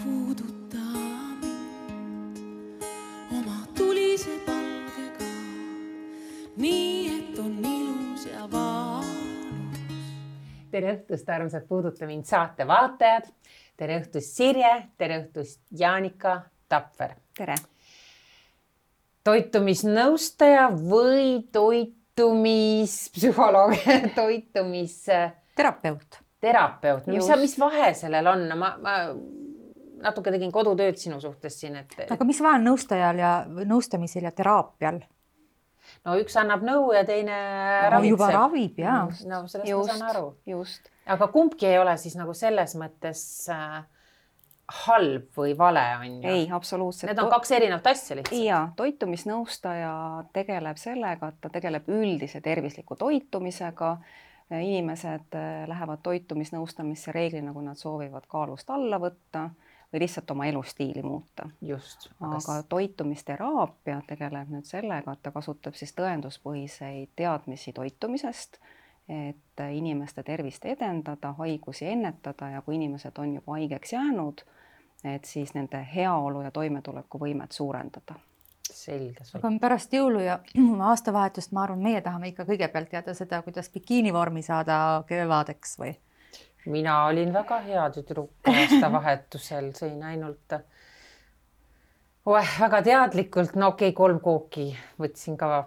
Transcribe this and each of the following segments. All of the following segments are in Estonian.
puuduta mind oma tulise palgega, nii et on ilus ja valus. Tere õhtust, armsad Puuduta mind saate vaatajad. Tere õhtust Sirje, tere õhtust Jaanika Tapver. Tere. Toitumisnõustaja või toitumispsühholoog, Terapeut. Terapeut. Mis vahe sellel on? Ma natuke tegin kodutööd sinu suhtes siin. Aga mis vahe on nõustajal ja nõustamisel ja teraapial? No üks annab nõu ja teine ravitseb. Juba ravib, jaa. No sellest ma saan aru. Just. Aga kumbki ei ole siis nagu selles mõttes halb või vale on ju? Ei, absoluutselt. Need on kaks erinevat asja lihtsalt. Ja toitumisnõustaja tegeleb sellega, et ta tegeleb üldise tervisliku toitumisega. Inimesed lähevad toitumisnõustamisse reeglina, kui nad soovivad kaalust alla võtta või lihtsalt oma elustiili muuta. Just. Aga toitumisteraapia tegeleb nüüd sellega, et ta kasutab siis tõenduspõhiseid teadmisi toitumisest, et inimeste tervist edendada, haigusi ennetada ja kui inimesed on juba haigeks jäänud, et siis nende heaolu ja toimetuleku võimet suurendada. Selge. Aga pärast jõulu ja aastavahetust ma arvan, meie tahame ikka kõigepealt teada seda, kuidas bikiinivormi saada kevadeks või? Mina olin väga hea tüdruk aastavahetusel, sõin ainult väga teadlikult, no okei, 3 kooki võtsin ka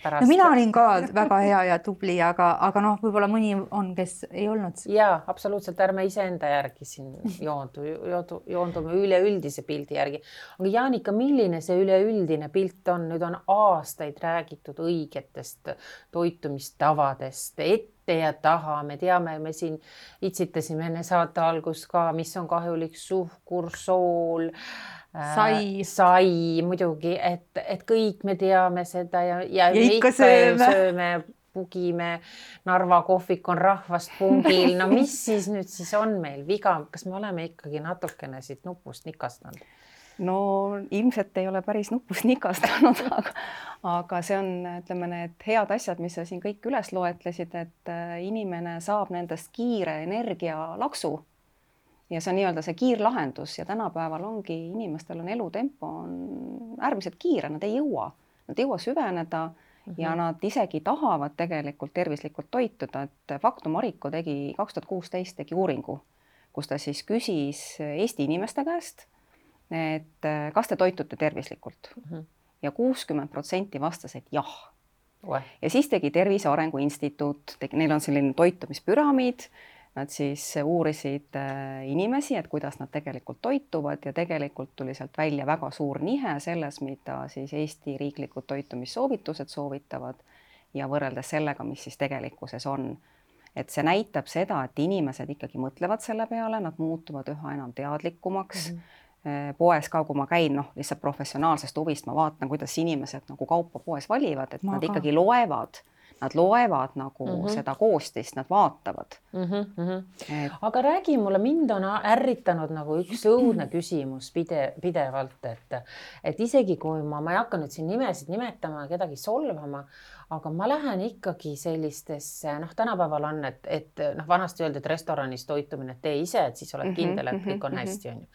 pärast. No mina olin ka väga hea ja tubli, aga noh, võib-olla mõni on, kes ei olnud. Jaa, absoluutselt, ärme iseenda järgi siin joondume üleüldise pildi järgi. Aga Jaanika, milline see üleüldine pilt on? Nüüd on aastaid räägitud õigetest toitumistavadest, ette ja taha. Me teame, me siin itsitasime enne saate algus ka, mis on kahjulik suhkur, sool, sai muidugi, et kõik me teame seda ja me ikka sööme, pugime, Narva kohvik on rahvast pungil. No mis siis nüüd siis on meil viga? Kas me oleme ikkagi natukene siit nupust nikastanud? No ilmselt ei ole päris nupust nikastanud, aga see on, ütleme, need head asjad, mis sa siin kõik üles loetlesid, et inimene saab nendest kiire energialaksu. Ja see on nii-öelda see kiirlahendus ja tänapäeval ongi inimestel on elutempo on äärmiselt kiire, nad ei jõua süveneda ja nad isegi tahavad tegelikult tervislikult toituda, et Faktum Mariko 2016 tegi uuringu, kus ta siis küsis Eesti inimeste käest, et kas te toitute tervislikult ja 60% vastas, et jah. Ja siis tegi Tervise Arengu Instituut, neil on selline toitumispüramiid. Nad siis uurisid inimesi, et kuidas nad tegelikult toituvad ja tegelikult tuli sealt välja väga suur nihe selles, mida siis Eesti riiklikud toitumissoovitused soovitavad ja võrreldes sellega, mis siis tegelikkuses on. Et see näitab seda, et inimesed ikkagi mõtlevad selle peale, nad muutuvad üha enam teadlikumaks. Poes ka, kui ma käin, lihtsalt professionaalsest huvist, ma vaatan, kuidas inimesed nagu kaupa poes valivad, et nad ikkagi loevad. Nad loevad nagu seda koostist, nad vaatavad. Aga räägi mulle, mind on ärritanud nagu üks õudne küsimus pidevalt, et isegi kui ma ei hakka nüüd siin nimesid nimetama, kedagi solvama, aga ma lähen ikkagi sellistesse, tänapäeval on, et vanasti öeldi, et restoranis toitumine tee ise, et siis oled kindel, et kõik on hästi, on ju.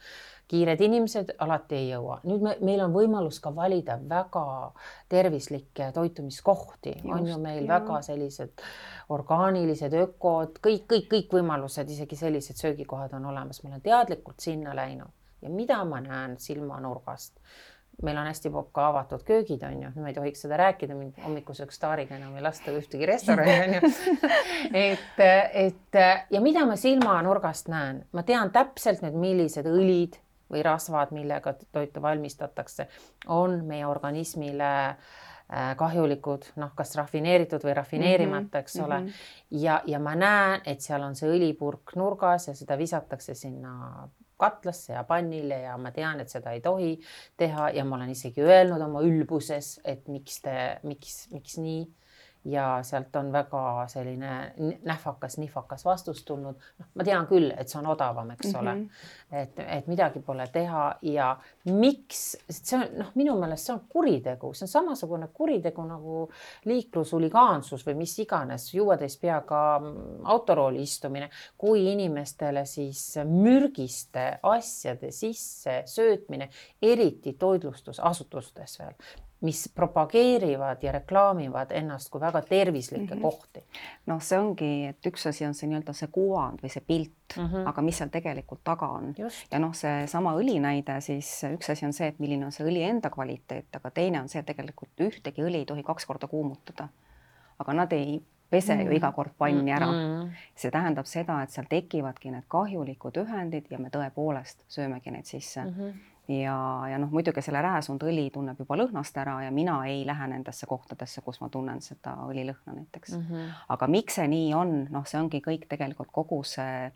Kiired inimesed alati ei jõua. Nüüd meil on võimalus ka valida väga tervislikke toitumiskohti. On ju meil väga sellised orgaanilised, ökod, kõik võimalused, isegi sellised söögikohad on olemas. Ma olen teadlikult sinna läinud ja mida ma näen silmanurgast. Meil on hästi ka avatud köögid, on ju. Ma ei tohiks seda rääkida, mind hommikuseks staariga enam ei lasta ühtegi restorani, on ju. Ja mida ma silmanurgast näen? Ma tean täpselt need, millised õlid või rasvad, millega toitu valmistatakse, on meie organismile kahjulikud, kas rafineeritud või rafineerimata, eks ole. Ja ma näen, et seal on see õlipurk nurgas ja seda visatakse sinna katlasse ja pannile ja ma tean, et seda ei tohi teha ja ma olen isegi öelnud oma ülbuses, et miks nii. ja sealt on väga selline nihvakas vastus tulnud. Ma tean küll, et see on odavam, eks ole, et midagi pole teha ja miks, see on minu meelest see on kuritegu, see on samasugune kuritegu nagu liiklushuligaansus või mis iganes, juuatäis peaga autorooli istumine, kui inimestele siis mürgiste asjade sisse söötmine, eriti toitlustusasutustes veel, mis propageerivad ja reklaamivad ennast kui väga tervislikke kohti. No see ongi, et üks asi on see nii-öelda see kuvand või see pilt, aga mis seal tegelikult taga on. Just. Ja see sama õli näide, siis üks asi on see, et milline on see õli enda kvaliteet, aga teine on see, et tegelikult ühtegi õli ei tohi 2 korda kuumutada. Aga nad ei pese ju iga kord panni ära. See tähendab seda, et seal tekivadki need kahjulikud ühendid ja me tõepoolest söömegi neid sisse. Ja muidugi selle rääsunud õli tunneb juba lõhnast ära ja mina ei lähe nendesse kohtadesse, kus ma tunnen seda õlilõhna näiteks. Aga miks see nii on? See ongi kõik tegelikult kogu see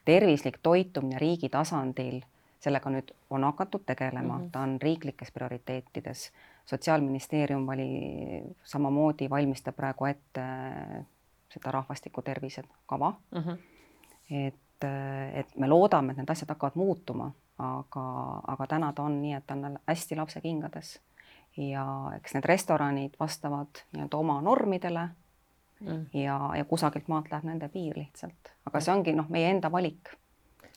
tervislik toitumine riigi tasandil. Sellega nüüd on hakatud tegelema, ta on riiklikes prioriteetides. Sotsiaalministeerium samamoodi valmistab praegu ette seda rahvastiku tervise kava. Et me loodame, et need asjad hakkavad muutuma. Aga täna ta on nii, et ta on hästi lapse kingades ja eks need restoranid vastavad oma normidele ja kusagelt maalt läheb nende piir lihtsalt. Aga see ongi meie enda valik.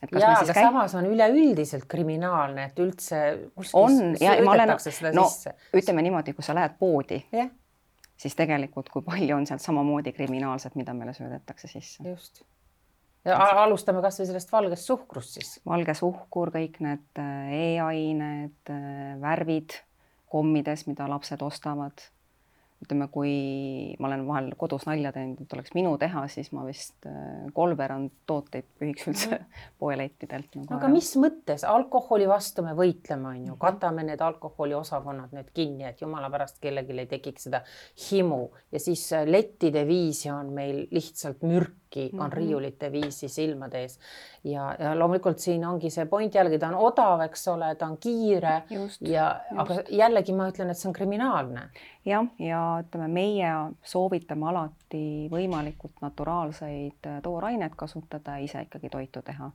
Aga samas on üleüldiselt kriminaalne, et üldse söödetakse seda sisse. Ütleme niimoodi, kui sa lähed poodi, siis tegelikult kui palju on sealt samamoodi kriminaalset, mida meile söödetakse sisse. Just. Ja alustame kas või sellest valgest suhkrust siis. Valge suhkur, kõik need e-ained, värvid kommides, mida lapsed ostavad. Ütleme, kui ma olen vahel kodus nalja teinud, et oleks minu teha, siis ma vist kolmveerand tooteid pühiks üldse poelettidelt. Aga mis mõttes? Alkoholi vastu me võitleme, on ju. Katame need alkoholi osakonnad nüüd kinni, et jumala pärast kellelgi ei tekiks seda himu. Ja siis lettide viisi on meil lihtsalt mürki, on riiulite viisi silmade ees. Ja loomulikult siin ongi see point jällegi, ta on odav, eks ole, ta on kiire. Aga jällegi ma ütlen, et see on kriminaalne. Ja ütleme, meie soovitame alati võimalikult naturaalseid toorainet kasutada ja ise ikkagi toitu teha.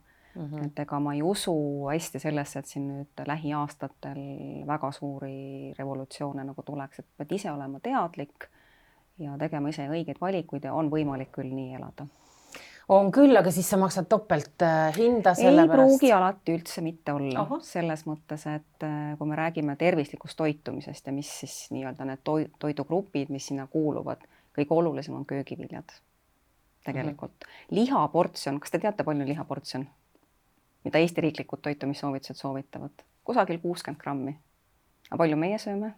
Et ega ma ei usu hästi sellesse, et siin nüüd lähiaastatel väga suuri revolutsioone nagu tuleks, et pead ise olema teadlik ja tegema ise õigeid valikuid ja on võimalik küll nii elada. On küll, aga siis sa maksad topelt hinda selle pärast? Ei pruugi alati üldse mitte olla. Selles mõttes, et kui me räägime tervislikust toitumisest ja mis siis nii-öelda need toidugrupid, mis sinna kuuluvad, kõige olulisem on köögiviljad tegelikult. Lihaportsjon, kas te teate palju lihaportsjon, mida Eesti riiklikud toitumissoovitused soovitavad? Kusagil 60 grammi. Aga palju meie sööme?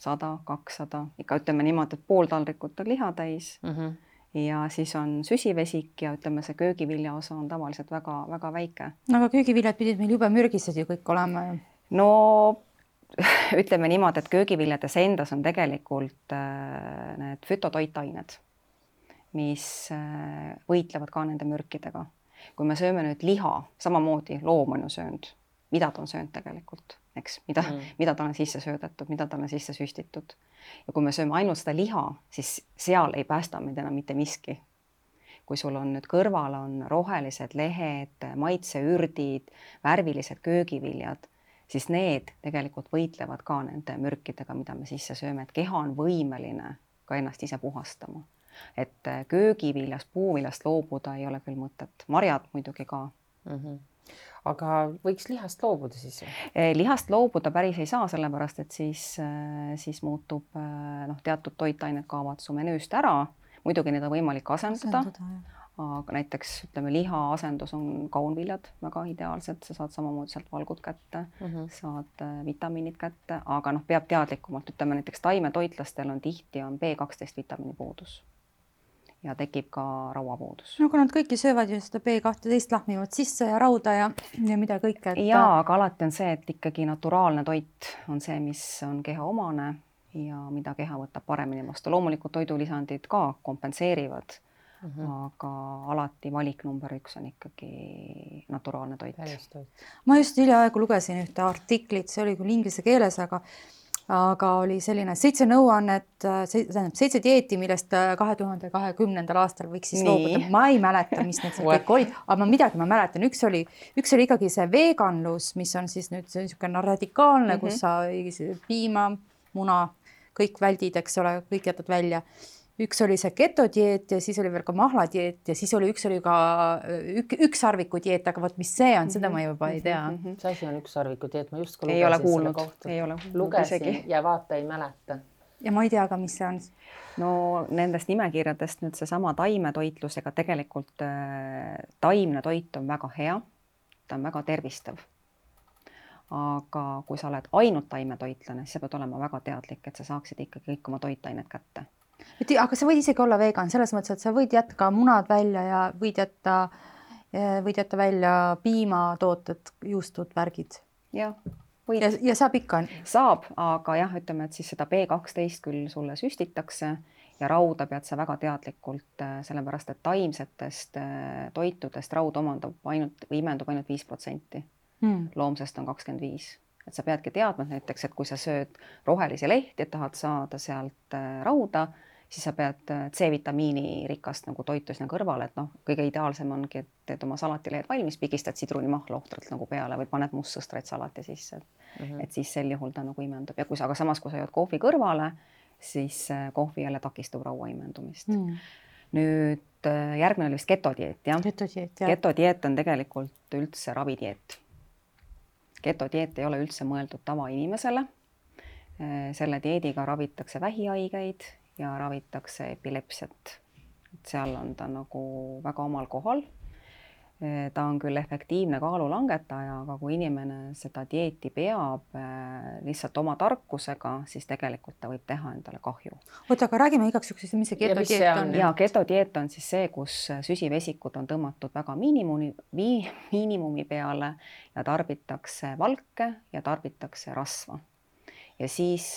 100, 200, ikka ütleme niimoodi, et pool taldrikut on liha täis. Ja siis on süsivesik ja ütleme, see köögivilja osa on tavaliselt väga, väga väike. No, aga köögiviljad pidid meil jube mürgised ju kõik olema. No ütleme niimoodi, et köögiviljades endas on tegelikult need fütotoitained, mis võitlevad ka nende mürkidega. Kui me sööme nüüd liha, samamoodi loom on ju söönud, mida ta on söönud tegelikult, eks? Mida ta on sisse söödetud, mida ta on sisse süstitud. Ja kui me sööme ainult seda liha, siis seal ei päästa meid enam mitte miski. Kui sul on nüüd kõrval on rohelised lehed, maitseürdid, värvilised köögiviljad, siis need tegelikult võitlevad ka nende mürkidega, mida me sisse sööme, et keha on võimeline ka ennast ise puhastama. Et köögiviljast, puuviljast loobuda ei ole küll mõtet. Marjad muidugi ka. Aga võiks lihast loobuda siis? Lihast loobuda päris ei saa, sellepärast, et siis muutub teatud toitained kaovad su menüüst ära. Muidugi need on võimalik asendada. Aga näiteks ütleme, liha asendus on kaunviljad väga ideaalsed. Sa saad samamoodi sealt valgud kätte, saad vitamiinid kätte, aga peab teadlikumalt. Ütleme näiteks taimetoitlastel on tihti B12 vitamiini puudus. Ja tekib ka rauapuudus. No kui nad kõiki söövad ju seda B12 lahmivad sisse ja rauda ja mida kõike. Jaa, aga alati on see, et ikkagi naturaalne toit on see, mis on keha omane ja mida keha võtab paremini vastu. Loomulikult toidulisandid ka kompenseerivad, aga alati valik number 1 on ikkagi naturaalne toit. Ma just hiljaaegu lugesin ühte artiklit, see oli küll inglise keeles, aga aga oli selline 7 nõuannet, 7 dieeti, millest 2020. aastal võiks siis loobuda. Ma ei mäleta, mis need kõik olid, aga ma mäletan. Üks oli ikkagi see veganlus, mis on siis nüüd niisugune radikaalne, kus sa piima, muna, kõik väldid, eks ole, kõik jätad välja. Üks oli see ketodieet ja siis oli veel ka mahladieet ja siis üks oli ka ükssarviku dieet, aga vot mis see on, seda ma juba ei tea. See asi on ükssarviku dieet, ma just ei ole kuulnud. Lugesin ja vaata ei mäleta. Ja ma ei tea ka, mis see on. No nendest nimekirjadest nüüd seesama taimetoitlusega tegelikult taimne toit on väga hea, ta on väga tervistav. Aga kui sa oled ainult taimetoitlane, siis sa pead olema väga teadlik, et sa saaksid ikkagi kõik oma toitained kätte. Aga sa võid isegi olla vegan selles mõttes, et sa võid jätta ka munad välja ja võid jätta välja piimatooted, juustud, värgid. Ja saab ikka? Saab, aga jah, ütleme, et siis seda B12 küll sulle süstitakse ja rauda pead sa väga teadlikult, sellepärast, et taimsetest toitudest raud imendub ainult 5%. Loomsest on 25%. Et sa peadki teadma näiteks, et kui sa sööd rohelisi lehti, et tahad saada sealt rauda, siis sa pead C-vitamiini rikast nagu toitu sinna kõrvale, et kõige ideaalsem ongi, et teed oma salatilehed valmis, pigistad sidrunimahla ohtralt nagu peale või paned mustsõstraid salati sisse. Et siis sel juhul ta nagu imendub. Ja aga samas, kui sa jood kohvi kõrvale, siis kohvi jälle takistub raua imendumist. Nüüd järgmine oli vist ketodieet, jah? Ketodieet on tegelikult üldse ravidieet. Ketodieet ei ole üldse mõeldud tavainimesele. Selle dieediga ravitakse vähihaigeid ja ravitakse epilepsiat. Seal on ta nagu väga omal kohal. Ta on küll efektiivne kaalulangetaja, aga kui inimene seda dieeti peab lihtsalt oma tarkusega, siis tegelikult ta võib teha endale kahju. Oota, aga räägime igaks juhuks, mis see ketodieet on? Ja ketodieet on siis see, kus süsivesikud on tõmmatud väga miinimumi peale ja tarbitakse valke ja tarbitakse rasva. Ja siis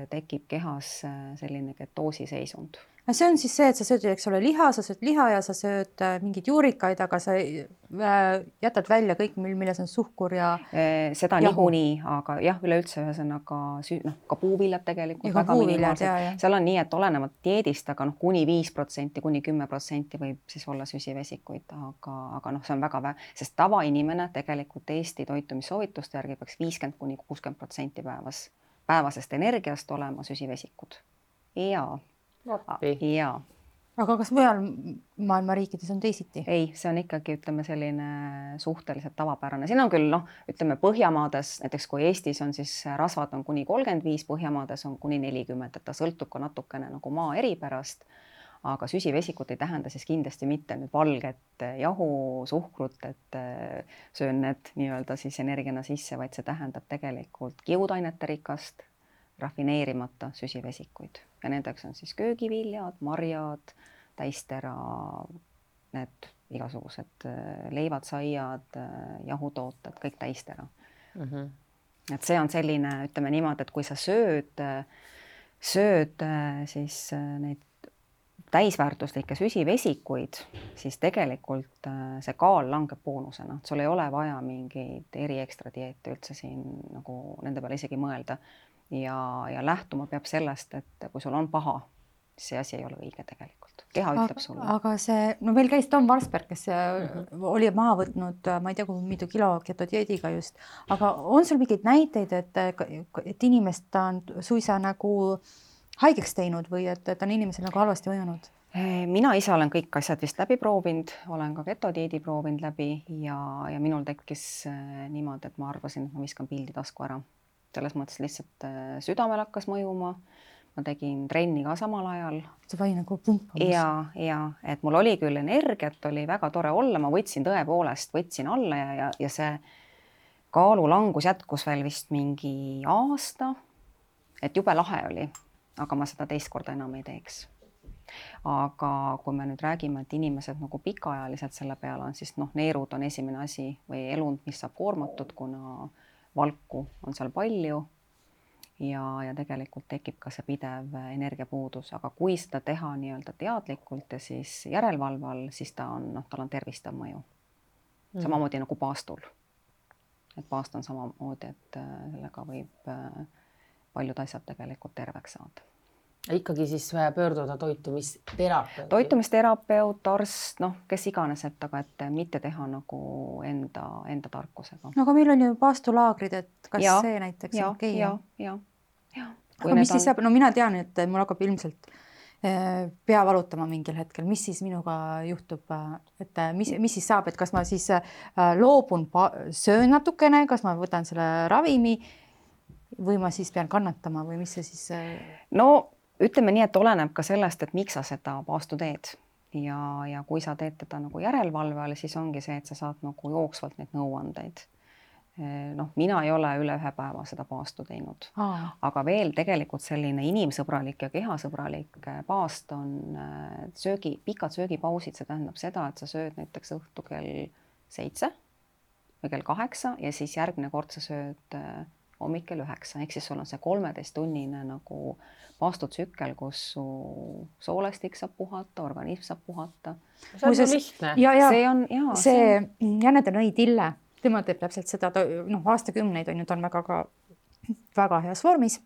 tekib kehas selline ketoosiseisund. See on siis see, et sa sööd, eks ole, sa sööd liha ja sa sööd mingid juurikaid, aga sa jätad välja kõik, milles on suhkur ja seda niikuinii, aga jah, üleüldse ühesõnaga ka puuviljad tegelikult. Ja puuviljad, jah. Seal on nii, et olenevalt dieedist, aga kuni 5%, kuni 10% võib siis olla süsivesikuid, aga see on väga sest tavainimene tegelikult Eesti toitumissoovituste järgi peaks 50–60% päevasest energiast olema süsivesikud. Ja. Aga kas mujal maailma riikides on teisiti? Ei, see on ikkagi, ütleme, selline suhteliselt tavapärane. Siin on küll, ütleme, Põhjamaades, näiteks kui Eestis on siis rasvad on kuni 35, Põhjamaades on kuni 40, et ta sõltub ka natukene nagu maa eripärast, aga süsivesikut ei tähenda siis kindlasti mitte nüüd valget jahu, suhkrut, et söön need nii-öelda siis energiana sisse, vaid see tähendab tegelikult kiudainete rikast, rafineerimata süsivesikuid ja nendeks on siis köögiviljad, marjad, täistera, need igasugused leivad, saiad, jahutooted, kõik täistera. Et see on selline, ütleme niimoodi, et kui sa sööd siis neid täisväärtuslikke süsivesikuid, siis tegelikult see kaal langeb boonusena. Sul ei ole vaja mingeid ekstra dieete üldse siin nagu nende peale isegi mõelda. Ja lähtuma peab sellest, et kui sul on paha, siis see asi ei ole õige tegelikult. Keha ütleb sulle. Aga see, meil käis Tom Varsberg, kes oli maha võtnud, ma ei tea, kui mitu kilo ketodieediga just, aga on sul mingeid näiteid, et inimest on suisa nagu haigeks teinud või et on inimesel nagu halvasti mõjunud? Mina ise olen kõik asjad vist läbi proovinud, olen ka ketodieedi proovinud läbi ja minul tekkis niimoodi, et ma arvasin, et ma viskan pildi tasku ära. Selles mõttes lihtsalt südamel hakkas mõjuma, ma tegin trenni ka samal ajal. See vai nagu pumpamas. Ja, et mul oli küll energiat, oli väga tore olla, ma võtsin alla ja see kaalulangus jätkus veel vist mingi aasta, et jube lahe oli, aga ma seda teist korda enam ei teeks. Aga kui me nüüd räägime, et inimesed nagu pikaajaliselt selle peale on, siis neerud on esimene asi või elund, mis saab koormatud, kuna valku on seal palju ja tegelikult tekib ka see pidev energiapuudus, aga kui seda teha nii-öelda teadlikult ja siis järelevalval, siis tal on tervistav mõju. Samamoodi nagu paastul. Et paast on samamoodi, et sellega võib paljud asjad tegelikult terveks saada. Ikkagi siis pöörduda toitumisterapeut. Toitumisterapeut, arst, kes iganes, aga et mitte teha nagu enda tarkusega. No aga meil on ju paastulaagrid, et kas see näiteks on okei? Ja. Aga mis siis saab? No mina tean, et mul hakkab ilmselt pea valutama mingil hetkel. Mis siis minuga juhtub? Et mis siis saab? Et kas ma siis loobun, söön natukene, kas ma võtan selle ravimi või ma siis pean kannatama või mis see siis? No ütleme nii, et oleneb ka sellest, et miks sa seda paastu teed ja kui sa teed teda nagu järelevalve all, siis ongi see, et sa saad nagu jooksvalt neid nõuandeid. Mina ei ole üle 1 päeva seda paastu teinud, aga veel tegelikult selline inimsõbralik ja kehasõbralik paast on pikad söögipausid, see tähendab seda, et sa sööd näiteks õhtu kell 7 või kell 8 ja siis järgmine kord sa sööd hommik kell 9, ehk siis sul on see 13-tunnine nagu paastutsükkel, kus su soolestik saab puhata, organism saab puhata. See on lihtne. See Janne Tõnõi Tille, tema teeb täpselt seda, aastakümneid on ju, ta on väga heas vormis.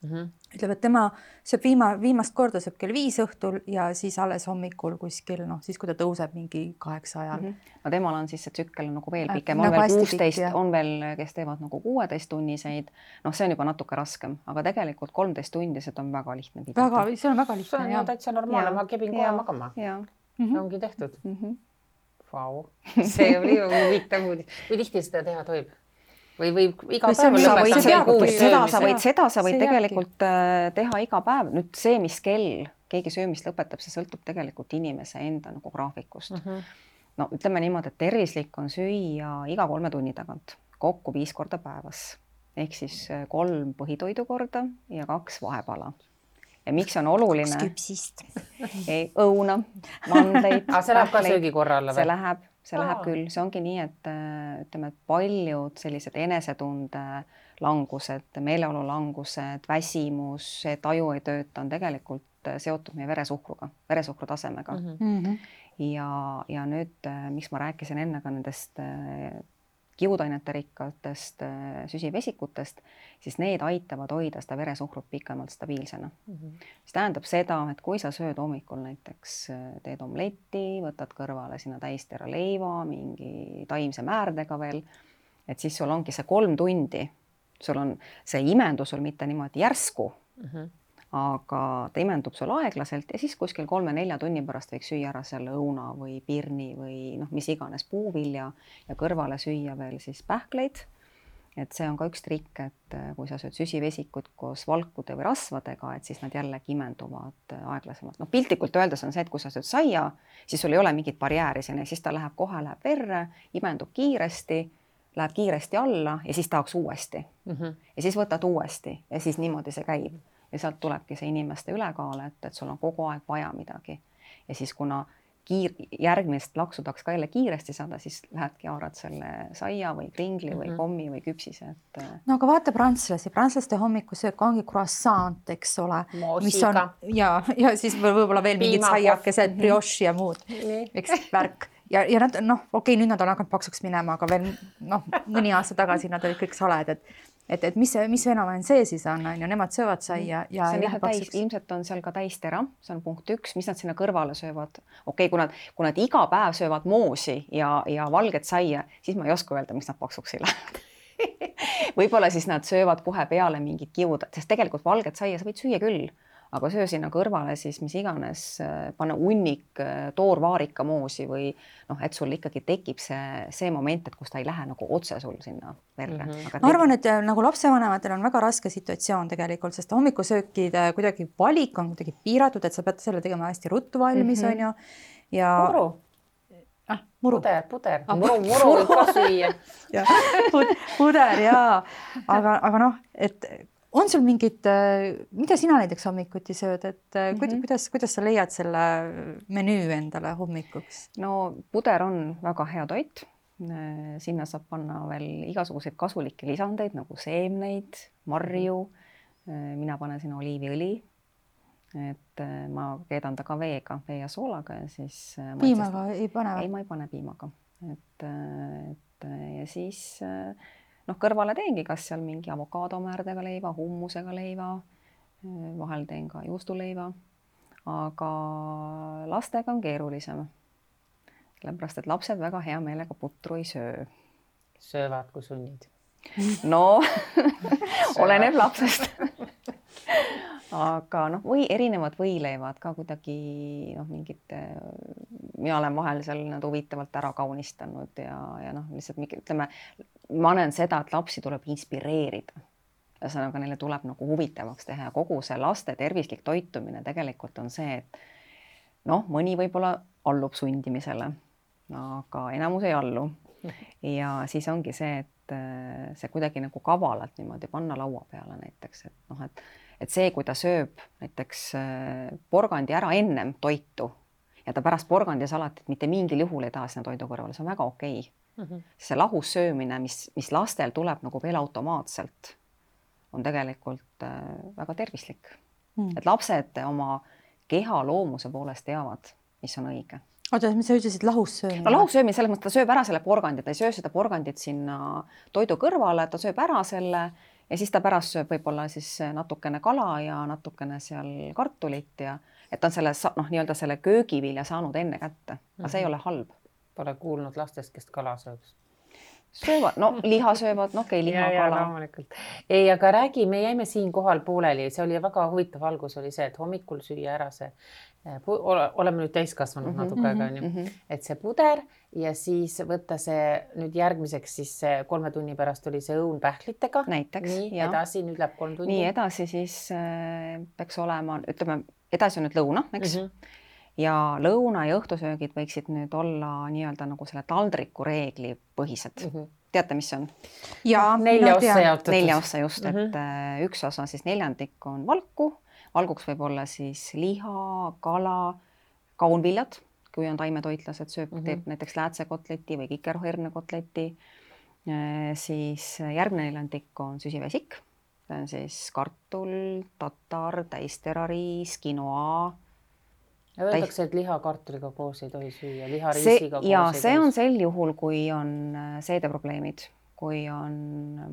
Ütleb, et tema sööb viimast korda sööb kell 5 õhtul ja siis alles hommikul kuskil, siis kui ta tõuseb mingi 8 ajal. No temal on siis see tsükkel nagu veel pikem, on veel 16, on veel, kes teevad nagu 16-tunniseid. See on juba natuke raskem, aga tegelikult 13 tundised on väga lihtne pidada. See on väga lihtne. See on täitsa normaalne, ma kebin kohe magama. See ongi tehtud. Vau, see oli huvitav uudis. Kui tihti seda teha tohib? Või iga päev lõpetada? Seda sa võid tegelikult teha iga päev. Nüüd see, mis kell keegi söömist lõpetab, see sõltub tegelikult inimese enda nagu graafikust. No ütleme niimoodi, et tervislik on süüa iga 3 tunni tagant, kokku 5 korda päevas. Ehk siis 3 põhitoidu korda ja 2 vahepala. Ja miks on oluline? 2 küpsist. Õuna, mandleid. See läheb ka söögikorra alla või? See läheb küll, see ongi nii, et ütleme, et paljud sellised enesetunde langused, meeleolu langused, väsimus, see taju ei tööta, on tegelikult seotud meie veresuhkru tasemega. Ja nüüd, miks ma rääkisin enne ka nendest kiudainete rikkatest süsivesikutest, siis need aitavad hoida seda veresuhkrut pikemalt stabiilsena. See tähendab seda, et kui sa sööd hommikul näiteks, teed omletti, võtad kõrvale sinna täistera leiva, mingi taimse määrdega veel, et siis sul ongi see 3 tundi, sul on see imendus sul mitte niimoodi järsku, aga ta imendub sul aeglaselt ja siis kuskil 3-4 tunni pärast võiks süüa ära selle õuna või pirni või mis iganes puuvilja ja kõrvale süüa veel siis pähkleid. Et see on ka üks trikk, et kui sa sööd süsivesikut koos valkude või rasvadega, et siis nad jällegi imenduvad aeglasemalt. Piltlikult öeldes on see, et kui sa sööd saia, siis sul ei ole mingit barjääri sinna, siis ta läheb verre, imendub kiiresti, läheb kiiresti alla ja siis tahaks uuesti. Ja siis võtad uuesti ja siis niimoodi see käib. Ja sealt tulebki see inimeste ülekaal, et sul on kogu aeg vaja midagi. Ja siis kuna järgmist laksu tahaks ka jälle kiiresti saada, siis lähedki haarad selle saia või kringli või kommi või küpsise. No aga vaata prantslaste hommikusöök ongi croissant, eks ole. Moosiga. Ja siis võib-olla veel mingid saiakesed, brioche ja muud. Eks värk. Ja nad, okei, nüüd nad on hakanud paksuks minema, aga veel mõni aasta tagasi nad olid kõik saled, et mis fenomen see siis on, nemad söövad saia ja ilmselt on seal ka täistera, see on punkt 1, mis nad sinna kõrvale söövad. Okei, kui nad iga päev söövad moosi ja valget saia, siis ma ei oska öelda, miks nad paksuks ei lähe. Võib-olla siis nad söövad kohe peale mingid kiud, sest tegelikult valget saia sa võid süüa küll, aga söö sinna kõrvale siis mis iganes, panna hunnik toorvaarika moosi või et sul ikkagi tekib see moment, et kus ta ei lähe nagu otse sul sinna verre. Ma arvan, et nagu lapsevanematel on väga raske situatsioon tegelikult, sest hommikusöökide kuidagi valik on kuidagi piiratud, et sa pead selle tegema hästi ruttu valmis, on ju. Ja Muru. Puder. Muru võib ka süüa. Puder, jaa. Aga et on sul mingid, mida sina näiteks hommikuti sööd, et kuidas sa leiad selle menüü endale hommikuks? No puder on väga hea toit. Sinna saab panna veel igasuguseid kasulikke lisandeid nagu seemneid, marju. Mina panen sinna oliiviõli. Et ma keedan ta ka veega, vee ja soolaga ja siis... Piimaga ei pane? Ei, ma ei pane piimaga. Ja siis noh, kõrvale teengi kas seal mingi avokaadomäärdega leiva, hummusega leiva, vahel teen ka juustuleiva, aga lastega on keerulisem. Sellepärast, et lapsed väga hea meelega putru ei söö. Söövad, kui sunnid. No, oleneb lapsest. Aga noh, või erinevad võileivad ka kuidagi noh, mingid, mina olen vahel seal nad huvitavalt ära kaunistanud ja noh, lihtsalt ütleme, ma näen seda, et lapsi tuleb inspireerida. Ühesõnaga, neile tuleb nagu huvitavaks teha ja kogu see laste tervislik toitumine tegelikult on see, et noh, mõni võib-olla allub sundimisele, aga enamus ei allu. Ja siis ongi see, et see kuidagi nagu kavalalt niimoodi panna laua peale näiteks, et noh, et see, kui ta sööb näiteks porgandi ära ennem toitu ja ta pärast porgandisalatit mitte mingil juhul ei taha sinna toidu kõrvale, see on väga okei. See lahus söömine, mis lastel tuleb nagu veel automaatselt, on tegelikult väga tervislik. Et lapsed oma keha loomuse poolest teavad, mis on õige. Oota, mis sa ütlesid, lahus söömine? No lahus söömine, selles mõttes ta sööb ära selle porgandi, ta ei söö seda porgandit sinna toidu kõrvale, ta sööb ära selle ja siis ta pärast sööb võib-olla siis natukene kala ja natukene seal kartulit ja et ta on selle, noh, nii-öelda selle köögivilja saanud enne kätte, aga see ei ole halb. Pole kuulnud lastest, kes kala sööb. Söövad, no liha söövad, no okei, liha, kala. Ei, aga räägi, me jäime siin kohal pooleli, see oli väga huvitav algus oli see, et hommikul süüa ära see, oleme nüüd täiskasvanud natuke aega, et see puder ja siis võtta see nüüd järgmiseks siis 3 tunni pärast oli see õun pähklitega. Näiteks, nii, edasi, nüüd läheb 3 tundi. Nii edasi siis peaks olema, ütleme, edasi on nüüd lõuna, eks? Ja lõuna ja õhtusöögid võiksid nüüd olla nii-öelda nagu selle taldriku reegli põhised. Teate, mis see on? Ja, 4 ossa jaotatud. 4 ossa just, et üks osa siis 4 on valku. Valguks võib olla siis liha, kala, kaunviljad, kui on taimetoitlased, teeb näiteks läätsekotleti või kikerherne-kotleti. Siis järgmine 4 on süsivesik. See on siis kartul, tatar, täisterariis, quinoa. Ja öeldakse, et liha kartuliga koos ei tohi süüa, liha riisiga koos ei tohi. See on sel juhul, kui on seedeprobleemid, kui on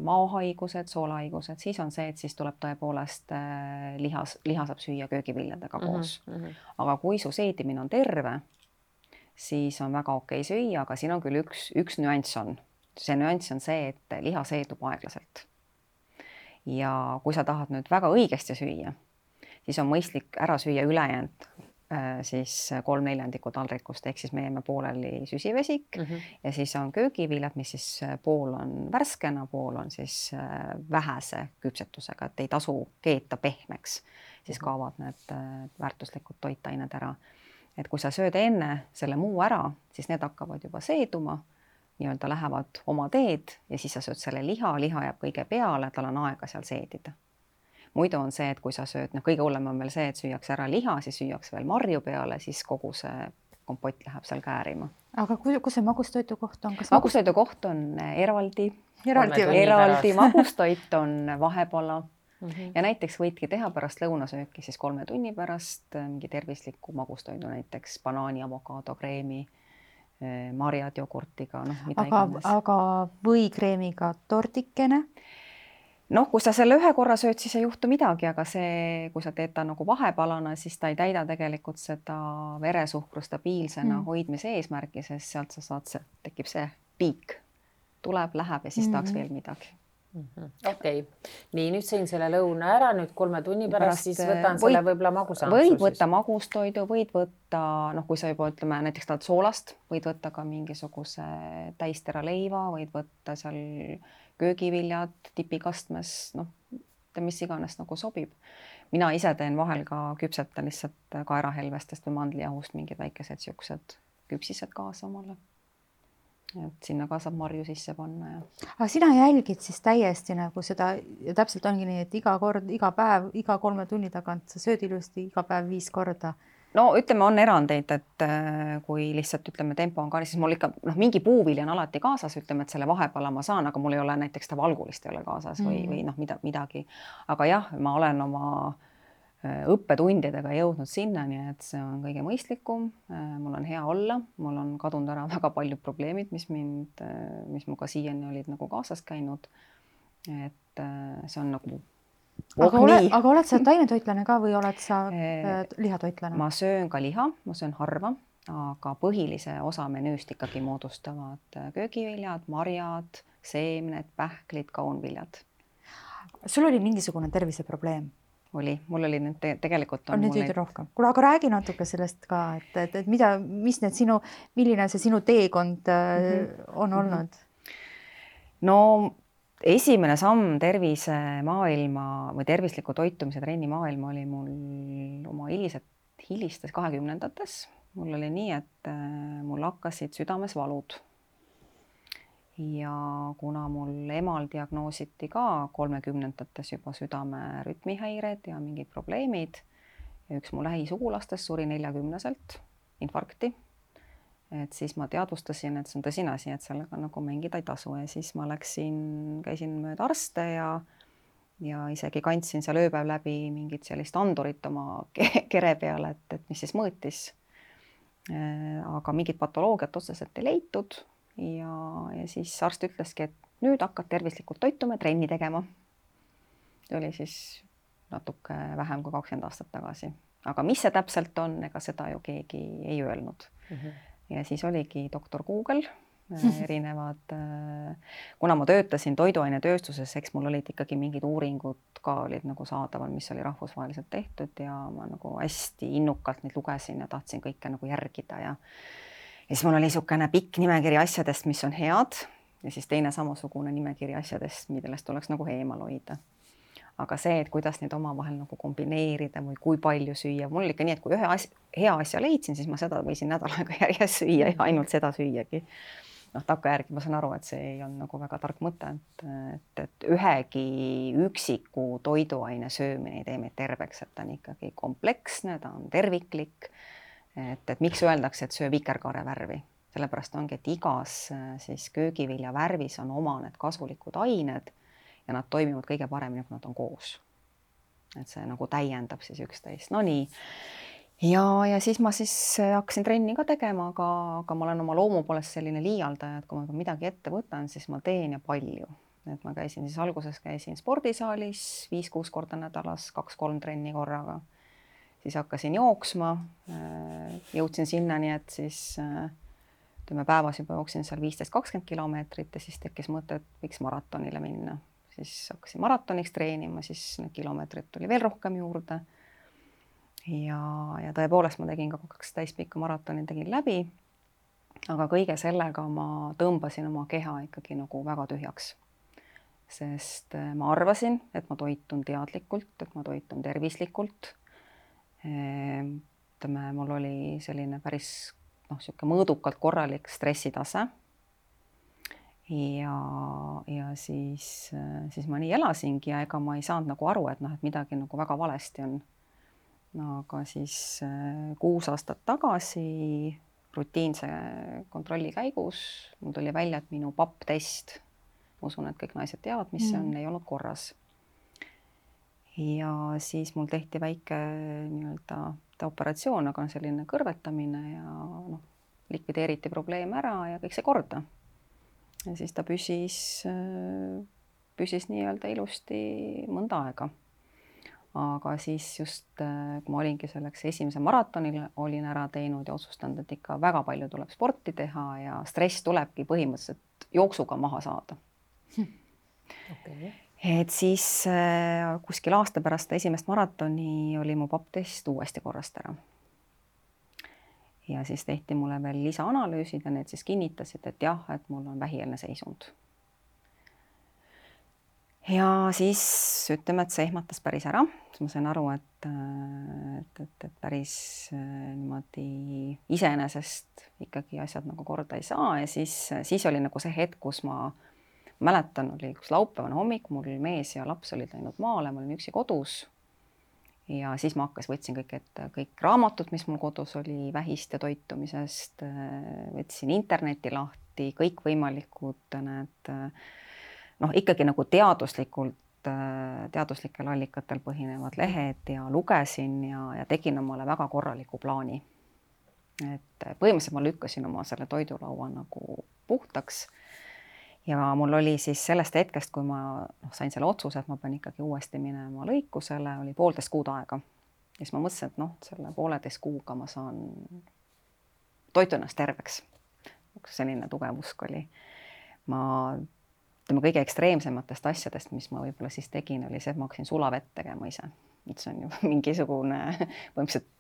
maohaigused, soolahaigused, siis on see, et siis tuleb tõepoolest liha saab süüa köögiviljadega koos. Aga kui su seedimine on terve, siis on väga okei süüa, aga siin on küll üks nüanss on. See nüanss on see, et liha seedub aeglaselt. Ja kui sa tahad nüüd väga õigesti süüa, siis on mõistlik ära süüa ülejäänud siis 3/4 taldrikust, ehk siis me jäime pooleli süsivesik ja siis on köögiviljad, mis siis pool on värskena, pool on siis vähese küpsetusega, et ei tasu keeta pehmeks, siis kaovad need väärtuslikud toitained ära. Et kui sa sööd enne selle muu ära, siis need hakkavad juba seeduma, nii-öelda lähevad oma teed ja siis sa sööd selle liha jääb kõige peale, tal on aega seal seedida. Muidu on see, et kui sa sööd, kõige hullem on veel see, et süüaks ära liha, siis süüaks veel marju peale, siis kogu see kompott läheb seal käärima. Aga kus see magustoitu koht on? Magustoitu koht on eraldi magustoit on vahepala ja näiteks võidki teha pärast lõunasööki siis 3 tunni pärast mingi tervisliku magustoidu, näiteks banaani, avokaado, kreemi, marjad jogurtiga, mida iganes. Aga võikreemiga tordikene? Noh, kui sa selle 1 korra sööd, siis ei juhtu midagi, aga see, kui sa teed ta nagu vahepalana, siis ta ei täida tegelikult seda veresuhkru stabiilsena hoidmise eesmärki, sest sealt sa saad, tekib see piik. Tuleb, läheb ja siis tahaks veel midagi. Okei. Nii, nüüd sõin selle lõuna ära, nüüd 3 tunni pärast siis võtan selle võib-olla magusampsu. Võid võtta magustoidu, võid võtta, kui sa juba ütleme, näiteks tahad soolast, võid võtta ka mingisuguse täistera leiva, võid võtta seal köögiviljad tipikastmes, mis iganes nagu sobib. Mina ise teen vahel ka küpsetan lihtsalt kaerahelvestest või mandlijahust mingid väikesed siuksed küpsised kaasa omale. Et sinna ka saab marju sisse panna. Aga sina jälgid siis täiesti nagu seda, ja täpselt ongi nii, et iga päev, iga 3 tunni tagant sa sööd ilusti iga päev 5 korda. No ütleme, on erandeid, et kui lihtsalt ütleme tempo on ka, siis mul ikka mingi puuvili on alati kaasas, ütleme, et selle vahepala ma saan, aga mul ei ole näiteks ta valgulist ei ole kaasas või midagi. Aga jah, ma olen oma õppetundidega jõudnud sinnani, et see on kõige mõistlikum, mul on hea olla, mul on kadunud ära väga paljud probleemid, mis muga siiani olid nagu kaasas käinud. Et see on nagu aga oled sa taimetoitlane ka või oled sa lihatoitlane? Ma söön ka liha, ma söön harva, aga põhilise osa menüüst ikkagi moodustavad köögiviljad, marjad, seemned, pähklid, kaunviljad. Sul oli mingisugune terviseprobleem? Mul oli nüüd tegelikult on nüüd rohkem. Kuule, aga räägi natuke sellest ka, et milline see sinu teekond on olnud? No esimene samm tervisemaailma või tervisliku toitumise trenni maailma oli mul oma hilistes 20-ndates. Mul oli nii, et mul hakkasid südames valud. Ja kuna mul emal diagnoositi ka 30-ndates juba südame rütmihäired ja mingid probleemid ja üks mu lähisugulastest suri 40-selt infarkti, et siis ma teadvustasin, et see on tõsine asi, et sellega nagu mängida ei tasu ja siis ma käisin mööda arste ja isegi kandsin seal ööpäev läbi mingit sellist andurit oma kere peale, et mis siis mõõtis. Aga mingit patoloogiat otseselt ei leitud. Ja siis arst ütleski, et nüüd hakkad tervislikult toituma ja trenni tegema. See oli siis natuke vähem kui 20 aastat tagasi. Aga mis see täpselt on, ega seda ju keegi ei öelnud. Ja siis oligi doktor Google, erinevad, kuna ma töötasin toiduainetööstuses, eks mul olid ikkagi mingid uuringud ka olid nagu saadaval, mis oli rahvusvaheliselt tehtud ja ma nagu hästi innukalt neid lugesin ja tahtsin kõike nagu järgida ja siis mul oli niisugune pikk nimekiri asjadest, mis on head ja siis teine samasugune nimekiri asjadest, millest tuleks nagu eemal hoida. Aga see, et kuidas neid omavahel nagu kombineerida või kui palju süüa, mul oli ikka nii, et kui ühe hea asja leidsin, siis ma seda võisin nädal aega järjest süüa ja ainult seda süüagi. Takkajärgi ma saan aru, et see ei on nagu väga tark mõte, et ühegi üksiku toiduaine söömine ei tee meid terveks, et ta on ikkagi kompleksne, ta on terviklik. Et miks öeldakse, et söö vikerkaare värvi? Sellepärast ongi, et igas siis köögivilja värvis on oma need kasulikud ained ja nad toimivad kõige paremini, kui nad on koos. Et see nagu täiendab siis üksteist. No nii. Ja siis ma siis hakkasin trenni ka tegema, aga ma olen oma loomu poolest selline liialdaja, et kui ma midagi ette võtan, siis ma teen ja palju. Et ma alguses käisin spordisaalis 5-6 korda nädalas, 2-3 trenni korraga. Siis hakkasin jooksma, jõudsin sinnani, et siis päevas juba jooksin seal 15-20 kilomeetrit ja siis tekkis mõte, et võiks maratonile minna. Siis hakkasin maratoniks treenima, siis need kilomeetrid tuli veel rohkem juurde. Ja tõepoolest ma tegin ka 2 täispikka maratoni, tegin läbi, aga kõige sellega ma tõmbasin oma keha ikkagi nagu väga tühjaks. Sest ma arvasin, et ma toitun teadlikult, et ma toitun tervislikult. Mul oli selline päris mõõdukalt korralik stressitase ja siis ma nii elasingi ja ega ma ei saanud nagu aru, et midagi nagu väga valesti on. Aga siis 6 aastat tagasi rutiinse kontrolli käigus mul tuli välja, et minu PAP-test, ma usun, et kõik naised teavad, mis see on, ei olnud korras. Ja siis mul tehti väike operatsioon, aga selline kõrvetamine ja likvideeriti probleem ära ja kõik see korda. Ja siis ta püsis nii-öelda ilusti mõnda aega. Aga siis just, kui ma olingi selleks esimese maratonil, olin ära teinud ja otsustanud, et ikka väga palju tuleb sporti teha ja stress tulebki põhimõtteliselt jooksuga maha saada. Okay. Et siis kuskil aasta pärast esimest maratoni oli mu PAP-test uuesti korrast ära. Ja siis tehti mulle veel lisaanalüüsid ja need siis kinnitasid, et jah, et mul on vähieelne seisund. Ja siis ütleme, et see ehmatas päris ära. Ma sain aru, et päris niimoodi iseenesest ikkagi asjad nagu korda ei saa ja siis oli nagu see hetk, kus ma mäletan, oli üks laupäevane hommik, mul mees ja laps olid läinud maale, ma olin üksi kodus ja siis ma võtsin kõik raamatud, mis mul kodus oli vähist ja toitumisest, võtsin interneti lahti, kõik võimalikud need, ikkagi nagu teaduslikult teaduslikel allikatel põhinevad lehed ja lugesin ja tegin omale väga korraliku plaani. Et põhimõtteliselt ma lükkasin oma selle toidulaua nagu puhtaks ja mul oli siis sellest hetkest, kui ma sain selle otsuse, et ma pean ikkagi uuesti minema lõikusele, oli 1,5 kuud aega. Ja siis ma mõtlesin, et selle 1,5 kuuga ma saan toitu ennast terveks. Selline tugev usk oli. Kõige ekstreemsematest asjadest, mis ma võib-olla siis tegin, oli see, et ma hakkasin sulavett tegema ise. Et see on ju mingisugune, põhimõtteliselt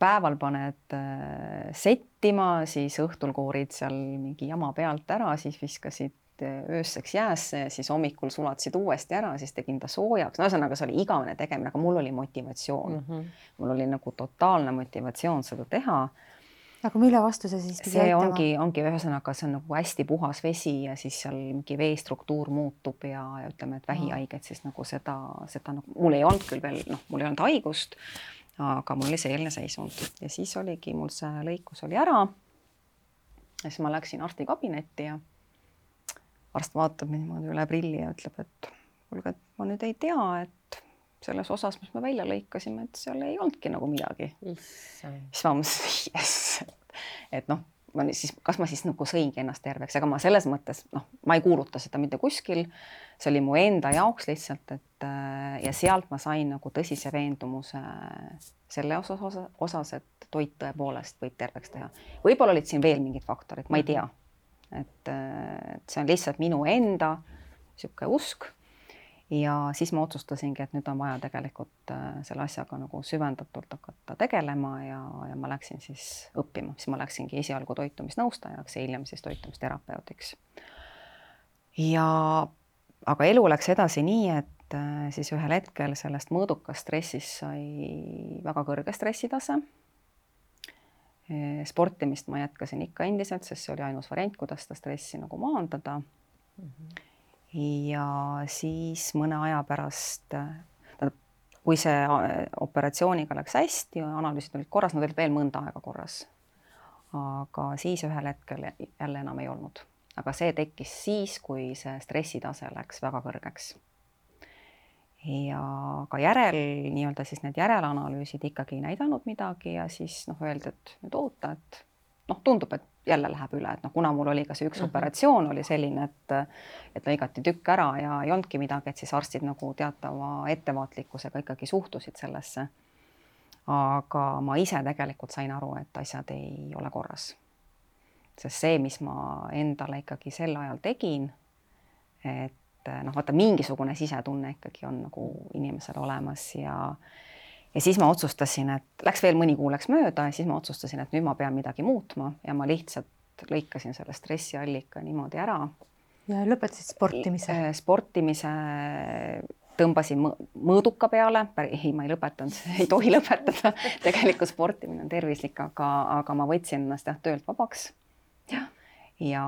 päeval paned settima, siis õhtul koorid seal mingi jama pealt ära, siis viskasid ööseks jäässe ja siis hommikul sulatasid uuesti ära, siis tegin ta soojaks. No ühesõnaga, see oli igavene tegemine, aga mul oli motivatsioon. Mul oli nagu totaalne motivatsioon seda teha. Aga mille vastu see siis pidi aitama? See ongi ühesõnaga, see on nagu hästi puhas vesi ja siis seal mingi veestruktuur muutub ja ütleme, et vähihaiged siis nagu seda nagu, mul ei olnud küll veel, mul ei olnud haigust, aga mul oli selline seisund. Ja siis oligi, mul see lõikus oli ära. Ja siis ma läksin arsti kabinetti ja arst vaatab niimoodi üle prilli ja ütleb, et kuulge, et ma nüüd ei tea, et selles osas, mis me välja lõikasime, et seal ei olnudki nagu midagi. Siis ma mõtlesin, et kas ma siis nagu sõingi ennast terveks, aga ma selles mõttes, ma ei kuuluta seda mitte kuskil, see oli mu enda jaoks lihtsalt, et ja sealt ma sain nagu tõsise veendumuse selle osas, et toit tõepoolest võib terveks teha. Võib-olla olid siin veel mingid faktorid, ma ei tea, et see on lihtsalt minu enda sihuke usk. Ja siis ma otsustasingi, et nüüd on vaja tegelikult selle asjaga nagu süvendatult hakata tegelema ja ma läksin siis õppima. Siis ma läksingi esialgu toitumisnõustajaks ja hiljem siis toitumisterapeutiks. Aga elu läks edasi nii, et siis ühel hetkel sellest mõõdukast stressist sai väga kõrge stressitase. Sportimist ma jätkasin ikka endiselt, sest see oli ainus variant, kuidas seda stressi nagu maandada. Ja siis mõne aja pärast, kui see operatsiooniga läks hästi, analüüsid olid korras, nad olid veel mõnda aega korras. Aga siis ühel hetkel jälle enam ei olnud. Aga see tekkis siis, kui see stressitase läks väga kõrgeks. Ja ka nii-öelda siis need järelanalüüsid ikkagi ei näidanud midagi ja siis öeldi, et nüüd oota, et tundub, et jälle läheb üle, et kuna mul oli ka see üks operatsioon oli selline, et lõigati tükk ära ja ei olnudki midagi, et siis arstid nagu teatava ettevaatlikkusega ikkagi suhtusid sellesse. Aga ma ise tegelikult sain aru, et asjad ei ole korras. Sest see, mis ma endale ikkagi sel ajal tegin, et vaata mingisugune sisetunne ikkagi on nagu inimesel olemas ja siis ma otsustasin, et läks veel mõni kuu läks mööda ja siis ma otsustasin, et nüüd ma pean midagi muutma ja ma lihtsalt lõikasin selle stressiallika niimoodi ära. Ja lõpetasid sportimise? Sportimise tõmbasin mõõduka peale, ma ei lõpetanud, ei tohi lõpetada, tegelikult sportimine on tervislik, aga ma võtsin ennast töölt vabaks ja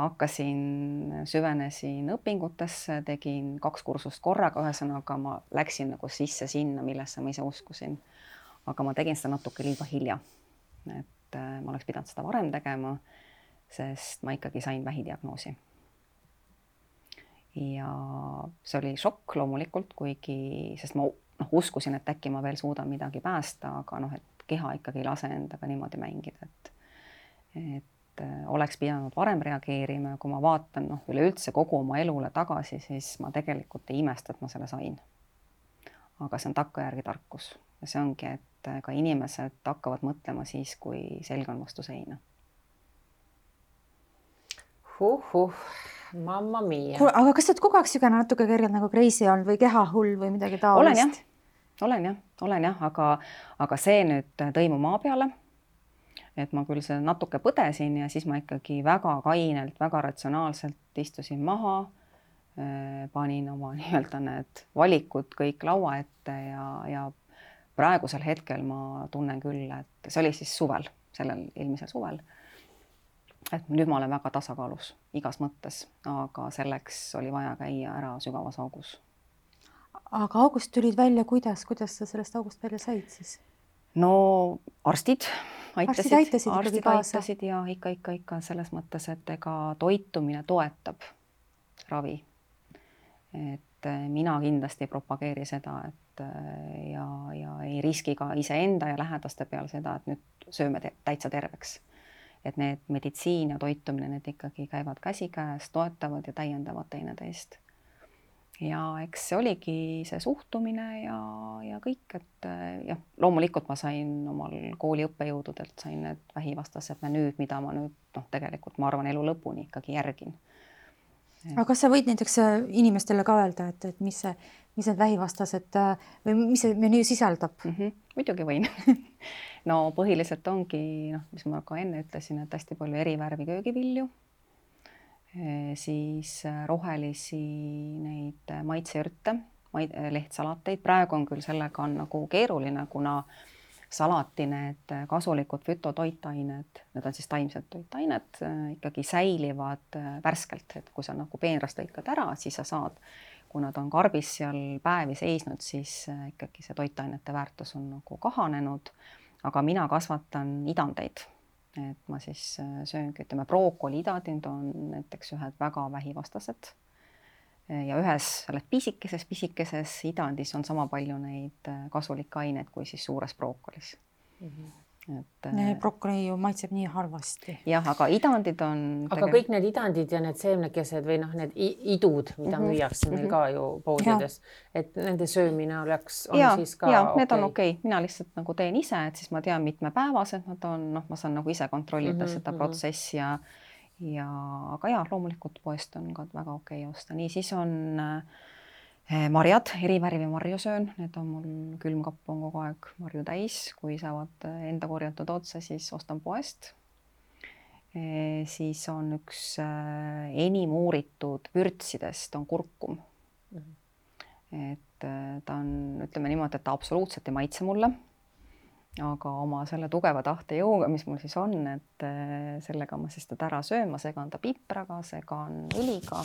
süvenesin õpingutesse, tegin 2 kursust korraga, ühesõnaga ma läksin nagu sisse sinna, millesse ma ise uskusin. Aga ma tegin seda natuke liiga hilja, et ma oleks pidanud seda varem tegema, sest ma ikkagi sain vähidiagnoosi. Ja see oli šokk loomulikult, sest ma uskusin, et äkki ma veel suudan midagi päästa, aga et keha ikkagi ei lase endaga niimoodi mängida, et oleks pidanud varem reageerima ja kui ma vaatan üleüldse kogu oma elule tagasi, siis ma tegelikult ei imesta, et ma selle sain. Aga see on takkajärgi tarkus ja see ongi, et ka inimesed hakkavad mõtlema siis, kui selg on vastu seina. Mamma mia. Aga kas sa oled kogu aeg sügane natuke kergelt nagu crazy olnud või kehahull või midagi taolist? Olen jah, aga see nüüd tõi mu maa peale. Et ma küll see natuke põdesin ja siis ma ikkagi väga kainelt, väga ratsionaalselt istusin maha, panin oma nii-öelda need valikud kõik laua ette ja praegusel hetkel ma tunnen küll, et see oli siis suvel, sellel eelmisel suvel, et nüüd ma olen väga tasakaalus igas mõttes, aga selleks oli vaja käia ära sügavas augus. Aga august tulid välja, kuidas sa sellest august välja said siis? No arstid aitasid ja ikka selles mõttes, et ega toitumine toetab ravi. Et mina kindlasti ei propageeri seda, et ja ei riski ka iseenda ja lähedaste peal seda, et nüüd sööme täitsa terveks. Et need meditsiin ja toitumine, need ikkagi käivad käsikäes, toetavad ja täiendavad teineteist. Ja eks see oligi see suhtumine ja kõik, et jah, loomulikult ma sain omal kooli õppejõududelt, sain need vähivastased menüüd, mida ma nüüd tegelikult ma arvan elu lõpuni ikkagi järgin. Aga kas sa võid näiteks inimestele ka öelda, et mis need vähivastased või mis see menüü sisaldab? Muidugi võin. No põhiliselt ongi, mis ma ka enne ütlesin, et hästi palju erivärvi köögivilju, siis rohelisi neid maitseürte, lehtsalateid. Praegu on küll sellega on nagu keeruline, kuna salati need kasulikud fütotoitained, need on siis taimsed toitained, ikkagi säilivad värskelt, et kui sa nagu peenrast lõikad ära, siis sa saad, kui nad on karbis seal päevi seisnud, siis ikkagi see toitainete väärtus on nagu kahanenud, aga mina kasvatan idandeid, et ma siis sööngi, ütleme, brookoli idandid on näiteks ühed väga vähivastased ja ühes selles pisikeses idandis on sama palju neid kasulikke aineid kui siis suures brookolis. Brookoli ju maitseb nii halvasti. Jah, aga idandid on... Aga kõik need idandid ja need seemnekesed või need idud, mida müüakse meil ka ju poodides, et nende söömine on siis ka need on okei. Mina lihtsalt nagu teen ise, et siis ma tean mitmepäevased nad on, ma saan nagu ise kontrollida seda protsessi aga loomulikult poest on ka väga okei osta. Nii, siis on marjad, erivärvi marju söön, need on mul külmkapp on kogu aeg marju täis, kui saavad enda korjatud otsa, siis ostan poest. Siis on üks enim uuritud vürtsidest on kurkum. Et ta on, ütleme niimoodi, et ta absoluutselt ei maitse mulle, aga oma selle tugeva tahtejõuga, mis mul siis on, et sellega ma siis teda ära söön, ma segan ta pipraga, segan õliga,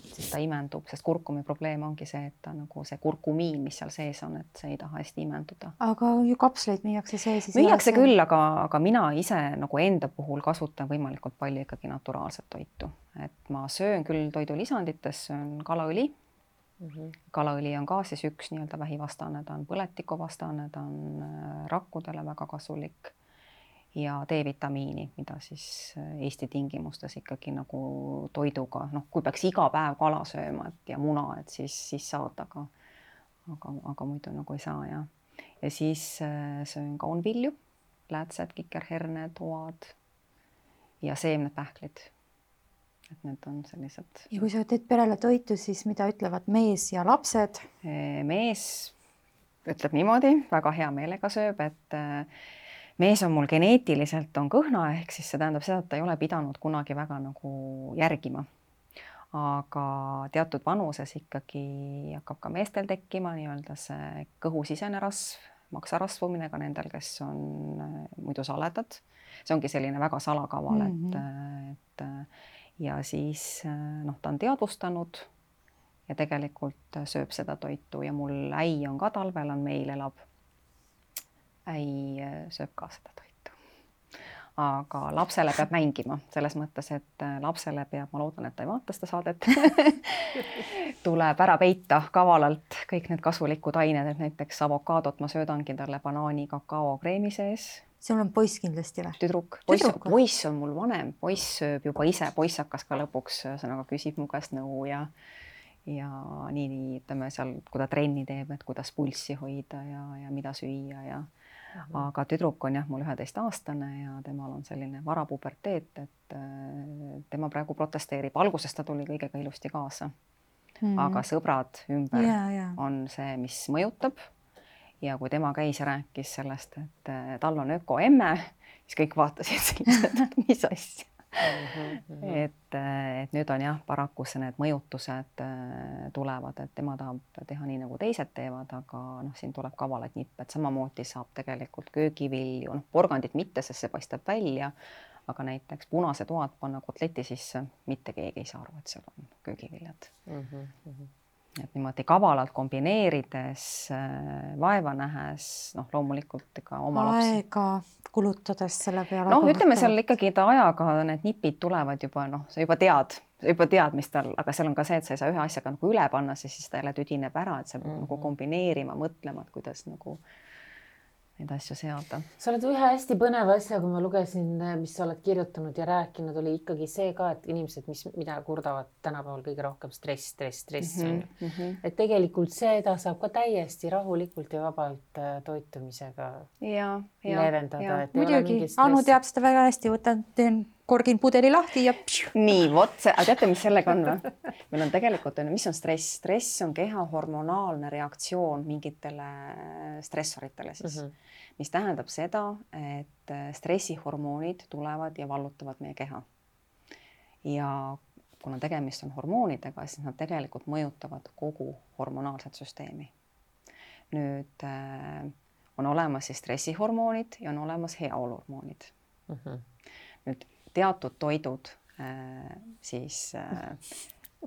siis ta imendub, sest kurkumi probleem ongi see, et ta nagu see kurkumiin, mis seal sees on, et see ei taha hästi imenduda. Aga ju kapsleid müüakse sees? Müüakse küll, aga mina ise nagu enda puhul kasutan võimalikult palju ikkagi naturaalset toitu. Et ma söön küll toidulisandites, söön kalaõli. Kalaõli on ka siis üks nii-öelda vähivastane, ta on põletikuvastane, ta on rakkudele väga kasulik ja D-vitamiini, mida siis Eesti tingimustes ikkagi nagu toiduga, kui peaks iga päev kala sööma ja muna, et siis saad, aga muidu nagu ei saa. Ja siis söön kaunvilju, läätsed, kikerherned, toad ja seemned pähklid. Et need on sellised. Ja kui sa teed perele toitu, siis mida ütlevad mees ja lapsed? Mees ütleb niimoodi, väga hea meelega sööb, et mees on mul geneetiliselt on kõhna, ehk siis see tähendab seda, et ta ei ole pidanud kunagi väga nagu järgima. Aga teatud vanuses ikkagi hakkab ka meestel tekkima nii-öelda see kõhusisene rasv, maksarasvumine ka nendel, kes on muidu saledad. See ongi selline väga salakaval, et ja siis ta on teadvustanud ja tegelikult sööb seda toitu ja mul äi on ka talvel, meil elab. Äi sööb ka seda toitu. Aga lapsele peab mängima selles mõttes, et lapsele peab, ma loodan, et ta ei vaata seda saadet, tuleb ära peita kavalalt kõik need kasulikud ained, et näiteks avokaadot ma söödangi talle banaani kakao kreemi sees. Sul on poiss kindlasti või? Tüdruk. Poiss on mul vanem, poiss sööb juba ise, poiss hakkas ka lõpuks, sõnaga küsib mu käest nõu ja nii, ütleme seal, kui ta trenni teeb, et kuidas pulssi hoida ja mida süüa aga tüdruk on mul 11-aastane ja temal on selline varapuberteet, et tema praegu protesteerib. Alguses ta tuli kõigega ilusti kaasa, aga sõbrad ümber on see, mis mõjutab. Ja kui tema käis ja rääkis sellest, et tal on ökoemme, siis kõik vaatasid sellised, et mis asja. Et nüüd on paraku need mõjutused tulevad, et tema tahab teha nii, nagu teised teevad, aga siin tuleb kavalad nipp, et samamoodi saab tegelikult köögivilju, porgandit mitte, sest see paistab välja, aga näiteks punase toad panna kotleti sisse, mitte keegi ei saa aru, et seal on köögiviljad. et niimoodi kavalalt kombineerides, vaeva nähes, noh, loomulikult ega oma lapsi. Aega kulutades selle peale. Noh, ütleme seal ikkagi ta ajaga need nipid tulevad juba, noh, sa juba tead, mis tal, aga seal on ka see, et sa ei saa ühe asjaga nagu üle panna, siis ta jälle tüdineb ära, et sa pead nagu kombineerima, mõtlema, et kuidas nagu neid asju seada. Sa oled ühe hästi põneva asja, kui ma lugesin, mis sa oled kirjutanud ja rääkinud, oli ikkagi see ka, et inimesed, mida kurdavad tänapäeval kõige rohkem stress. Et tegelikult seda saab ka täiesti rahulikult ja vabalt toitumisega leevendada. Muidugi, Anu teab seda väga hästi, teen korgin pudeli lahti ja nii, vot see, aga teate, mis sellega on või? Meil on tegelikult, mis on stress? Stress on keha hormonaalne reaktsioon mingitele stressoritele siis, mis tähendab seda, et stressihormoonid tulevad ja vallutavad meie keha. Ja kuna tegemist on hormoonidega, siis nad tegelikult mõjutavad kogu hormonaalset süsteemi. Nüüd on olemas siis stressihormoonid ja on olemas heaoluhormoonid. Nüüd teatud toidud siis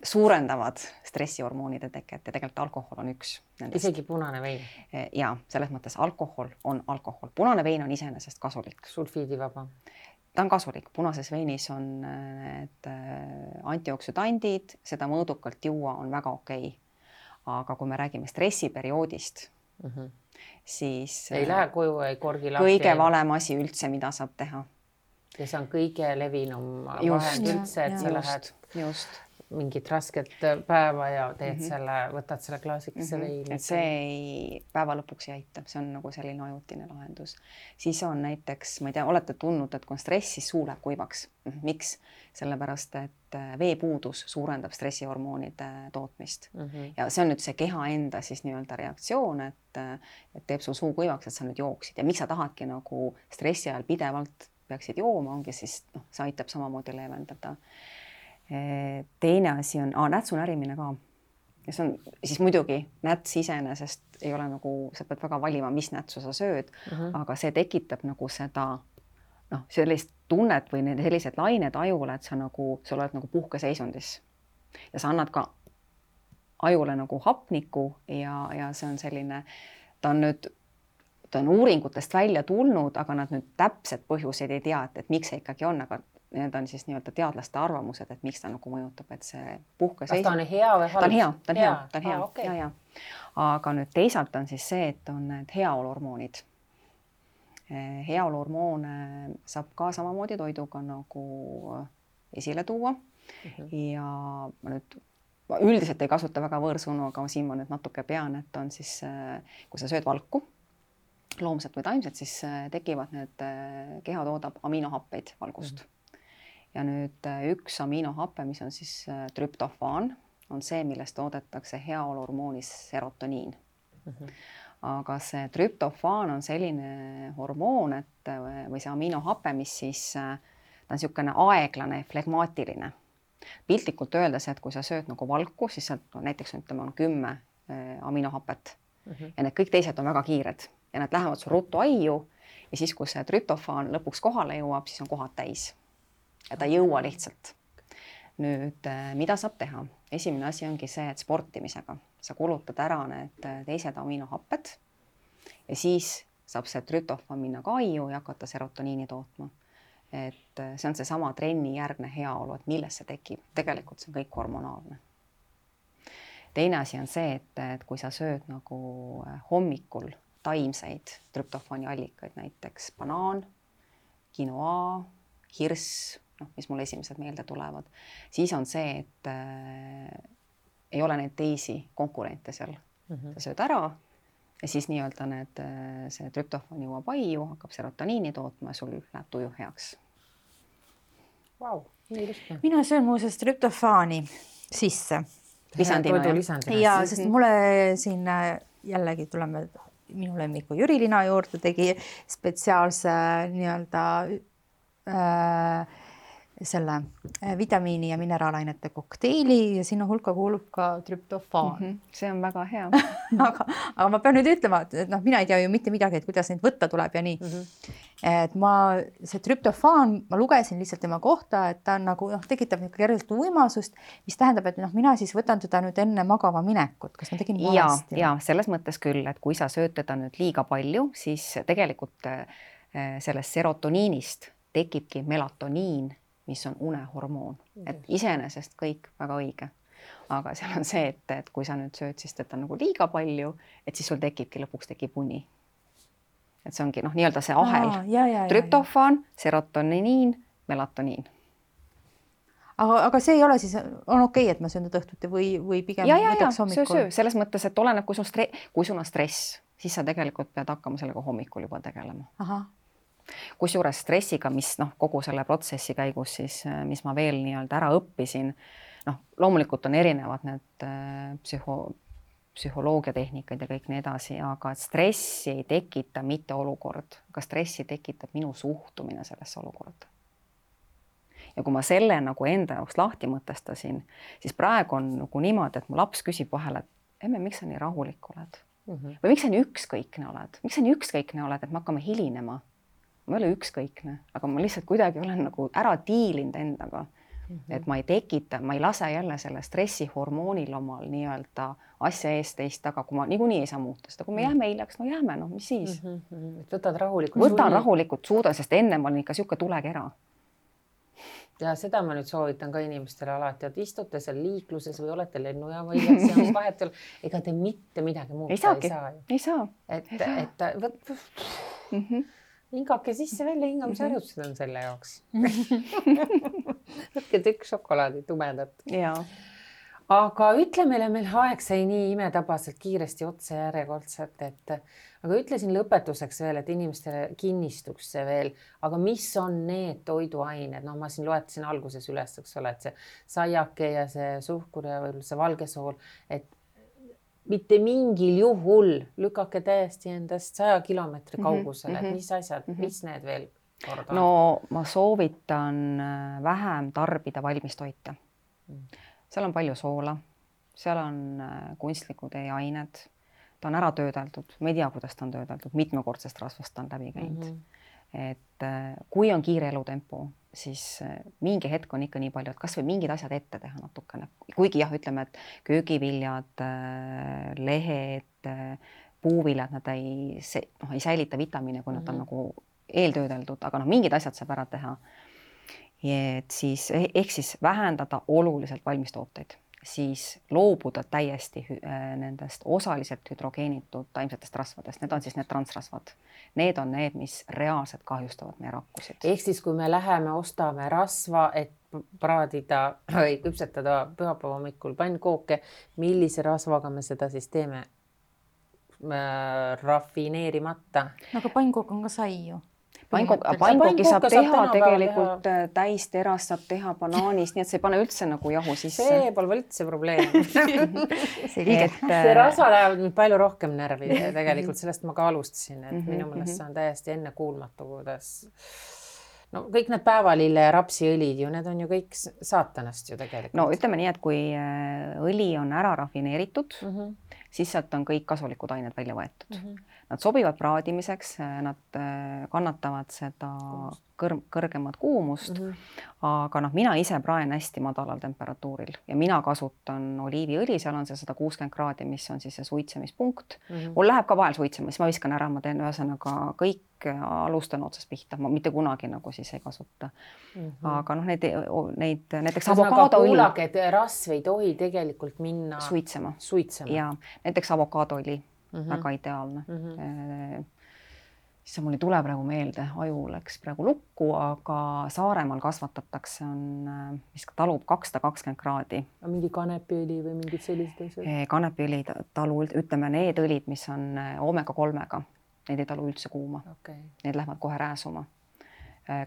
suurendavad stressihormoonide teket ja tegelikult alkohol on üks nendest. Isegi punane vein? Ja selles mõttes alkohol on alkohol. Punane vein on iseenesest kasulik. Sulfiidivaba? Ta on kasulik. Punases veinis on need antioksüdandid, seda mõõdukalt juua on väga okei. Aga kui me räägime stressiperioodist, siis ei lähe koju, ei korgi lahti. Kõige valem asi üldse, mida saab teha. Ja see on kõige levinum vahend üldse, et sa lähed mingit rasket päeva ja teed võtad selle klaasikese veini. Et see päeva lõpuks ei aita, see on nagu selline ajutine lahendus. Siis on näiteks, ma ei tea, olete tundnud, et kui on stress, siis suu läheb kuivaks. Miks? Sellepärast, et veepuudus suurendab stressihormoonide tootmist. Ja see on nüüd see keha enda siis nii-öelda reaktsioon, et teeb sul suu kuivaks, et sa nüüd jooksid. Ja miks sa tahadki nagu stressi ajal pidevalt peaksid jooma, ongi siis, see aitab samamoodi leevendada. Teine asi on nätsu närimine ka. Ja see on siis muidugi näts iseenesest ei ole nagu, sa pead väga valima, mis nätsu sa sööd, aga see tekitab nagu seda, sellist tunnet või sellised lained ajule, et sa oled nagu puhkeseisundis. Ja sa annad ka ajule nagu hapniku ja see on selline, ta on uuringutest välja tulnud, aga nad nüüd täpsed põhjuseid ei tea, et miks see ikkagi on, aga need on siis nii-öelda teadlaste arvamused, et miks ta nagu mõjutab, et see puhkeseisund. Kas ta on hea või halb? Ta on hea. Okay. Ja. Aga nüüd teisalt on siis see, et on need heaoluhormoonid. Heaoluhormoone saab ka samamoodi toiduga nagu esile tuua. Ja ma nüüd üldiselt ei kasuta väga võõrsõnu, aga siin ma nüüd natuke pean, et on siis, kui sa sööd valku, loomset või taimset, siis tekivad need, keha toodab aminohappeid valgust. Ja nüüd üks aminohappe, mis on siis trüptofaan, on see, millest toodetakse heaoluhormoonis serotoniin. Aga see trüptofaan on selline hormoon, või see aminohappe, mis siis, ta on niisugune aeglane, flegmaatiline. Piltlikult öeldes, et kui sa sööd nagu valku, siis sealt näiteks on 10 aminohapet ja need kõik teised on väga kiired. Ja nad lähevad su ruttu aiu ja siis, kui see trüptofaan lõpuks kohale jõuab, siis on kohad täis. Ja ta ei jõua lihtsalt. Nüüd, mida saab teha? Esimene asi ongi see, et sportimisega sa kulutad ära need teised aminohapped ja siis saab see trüptofaan minna ka aiu ja hakata serotoniini tootma. Et see on see sama trenni järgne heaolu, et milles see tekib. Tegelikult see on kõik hormonaalne. Teine asi on see, et kui sa sööd nagu hommikul taimseid trüptofaani allikaid, näiteks banaan, quinoa, hirss, mis mul esimesed meelde tulevad, siis on see, et ei ole neid teisi konkurente seal. Sa sööd ära ja siis nii-öelda see trüptofaan jõuab aiu, hakkab serotoniini tootma ja sul läheb tuju heaks. Wow, nii lihtne. Mina söön muuseas trüptofaani sisse. Lisandina. Ja, sest mulle siin jällegi tuleme minu lemmiku Jüri Lina juurde, tegi spetsiaalse nii-öelda selle vitamiini ja mineraalainete kokteili ja sinna hulka kuulub ka trüptofaan. See on väga hea. aga ma pean nüüd ütlema, et mina ei tea ju mitte midagi, et kuidas neid võtta tuleb ja nii. et see trüptofaan, ma lugesin lihtsalt tema kohta, et ta on nagu tekitab kergelt uimasust, mis tähendab, et mina siis võtan teda nüüd enne magama minekut, kas ma tegin valesti? Ja selles mõttes küll, et kui sa sööd teda nüüd liiga palju, siis tegelikult sellest serotoniinist tekibki melatoniin, mis on unehormoon, et iseenesest kõik väga õige. Aga seal on see, et kui sa nüüd sööd siis teda nagu liiga palju, et siis sul lõpuks tekib uni. Et see ongi nii-öelda see ahel, trüptofaan, serotoniin, melatoniin. Aga see ei ole siis, on okei, et ma söön teda õhtuti või pigem võtaks hommikul? Söö. Selles mõttes, et oleneb, kui sul on stress, siis sa tegelikult pead hakkama sellega hommikul juba tegelema. Kusjuures stressiga, mis kogu selle protsessi käigus siis, mis ma veel nii-öelda ära õppisin, loomulikult on erinevad need psühholoogiatehnikaid ja kõik nii edasi, aga stressi ei tekita mitte olukord, aga stressi tekitab minu suhtumine sellesse olukorda. Ja kui ma selle enda jaoks lahti mõtestasin, siis praegu on niimoodi, et mu laps küsib vahel, et emme, miks sa nii rahulik oled? Või miks sa nii ükskõikne oled? Miks sa nii ükskõikne oled, et me hakkame hilinema? Ma ei ole ükskõikne, aga ma lihtsalt kuidagi olen ära diilinud endaga. Et ma ei lase jälle selle stressihormoonil omal nii-öelda asja eest teist taga, kui ma niikuinii ei saa muuta seda. Kui me jääme hiljaks, jääme, mis siis? Võtad rahulikult. Võtan rahulikult, suudan, sest enne ma olin ikka siuke tulekera. Ja seda ma nüüd soovitan ka inimestele alati, et istute seal liikluses või olete lennujaama hiljaks ja vahet ei ole. Ega te mitte midagi muuta ei saa. Et hingake sisse välja, hingamisharjutused on selle jaoks. Võtke tükk šokolaadi tumedat. Aga ütle meile, meil aeg sai nii imetabaselt kiiresti otsa järjekordselt, aga ütlesin lõpetuseks veel, et inimestele kinnistuks see veel, aga mis on need toiduained? Ma siin loetasin alguses üles, eks ole, et see saiake ja see suhkur ja võib-olla see valgesool, et mitte mingil juhul lükake täiesti endast 100 kilomeetri kaugusele, et mis asjad, mis need veel korda on? No ma soovitan vähem tarbida valmistoite. Seal on palju soola, seal on kunstlikud ained, ta on ära töödeldud, me ei tea, kuidas ta on töödeldud, mitmekordsest rasvast ta on läbi käinud. Et kui on kiire elutempo, siis mingi hetk on ikka nii palju, et kas või mingid asjad ette teha natukene. Kuigi ütleme, et köögiviljad, lehed, puuviljad, nad ei säilita vitamiine, kui nad on nagu eeltöödeldud, aga mingid asjad saab ära teha. Et siis, ehk siis vähendada oluliselt valmistooteid, siis loobuda täiesti nendest osaliselt hüdrogeenitud taimsetest rasvadest. Need on siis need transrasvad. Need on need, mis reaalselt kahjustavad meie rakkusid. Ehk siis, kui me läheme, ostame rasva, et praadida või küpsetada pühapäeva hommikul pannkooke, millise rasvaga me seda siis teeme? Rafineerimata. Aga pannkook on ka sai ju. Pannkooki saab teha tegelikult täisterast, saab teha banaanist, nii et see ei pane üldse nagu jahu sisse. See pole üldse probleem. See rasva läheb palju rohkem närvi tegelikult, sellest ma ka alustasin, et minu meelest see on täiesti ennekuulmatu, kuidas kõik need päevalille ja rapsiõlid ju, need on ju kõik saatanast ju tegelikult. No ütleme nii, et kui õli on ära rafineeritud, siis sealt on kõik kasulikud ained välja võetud. Nad sobivad praadimiseks, nad kannatavad seda kõrgemat kuumust, aga mina ise praen hästi madalal temperatuuril ja mina kasutan oliiviõli, seal on see 160 kraadi, mis on siis see suitsemispunkt. Mul läheb ka vahel suitsema, siis ma viskan ära, ma teen ühesõnaga kõik alustan otsast pihta, ma mitte kunagi nagu siis ei kasuta. Aga neid näiteks avokaadoõli. Kuulake, et rasv ei tohi tegelikult minna suitsema. Ja näiteks avokaadoõli, väga ideaalne. Siis mul ei tule praegu meelde, aju läks praegu lukku, aga Saaremaal kasvatatakse, mis talub 220 kraadi. Mingi kanepiõli või mingid sellised asjad? Kanepiõli talu, ütleme need õlid, mis on omega-3-ga, need ei talu üldse kuuma. Need lähevad kohe rääsuma.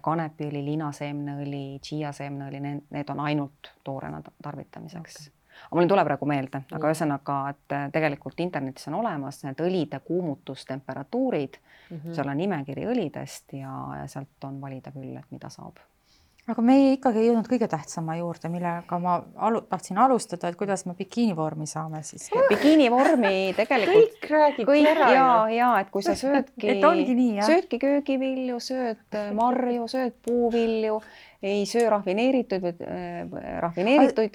Kanepiõli, linaseemneõli, chia-seemneõli, need on ainult toorena tarvitamiseks. Aga mul ei tule praegu meelde, aga ühesõnaga, et tegelikult internetis on olemas need õlide kuumutustemperatuurid, seal on nimekiri õlidest ja sealt on valida küll, et mida saab. aga me ikkagi ei jõudnud kõige tähtsama juurde, millega ma tahtsin alustada, et kuidas me bikiinivormi saame siis. Bikiinivormi tegelikult kõik räägibki ära. Ja, et kui sa söödki, söödki köögivilju, sööd marju, sööd puuvilju, ei söö rafineeritud.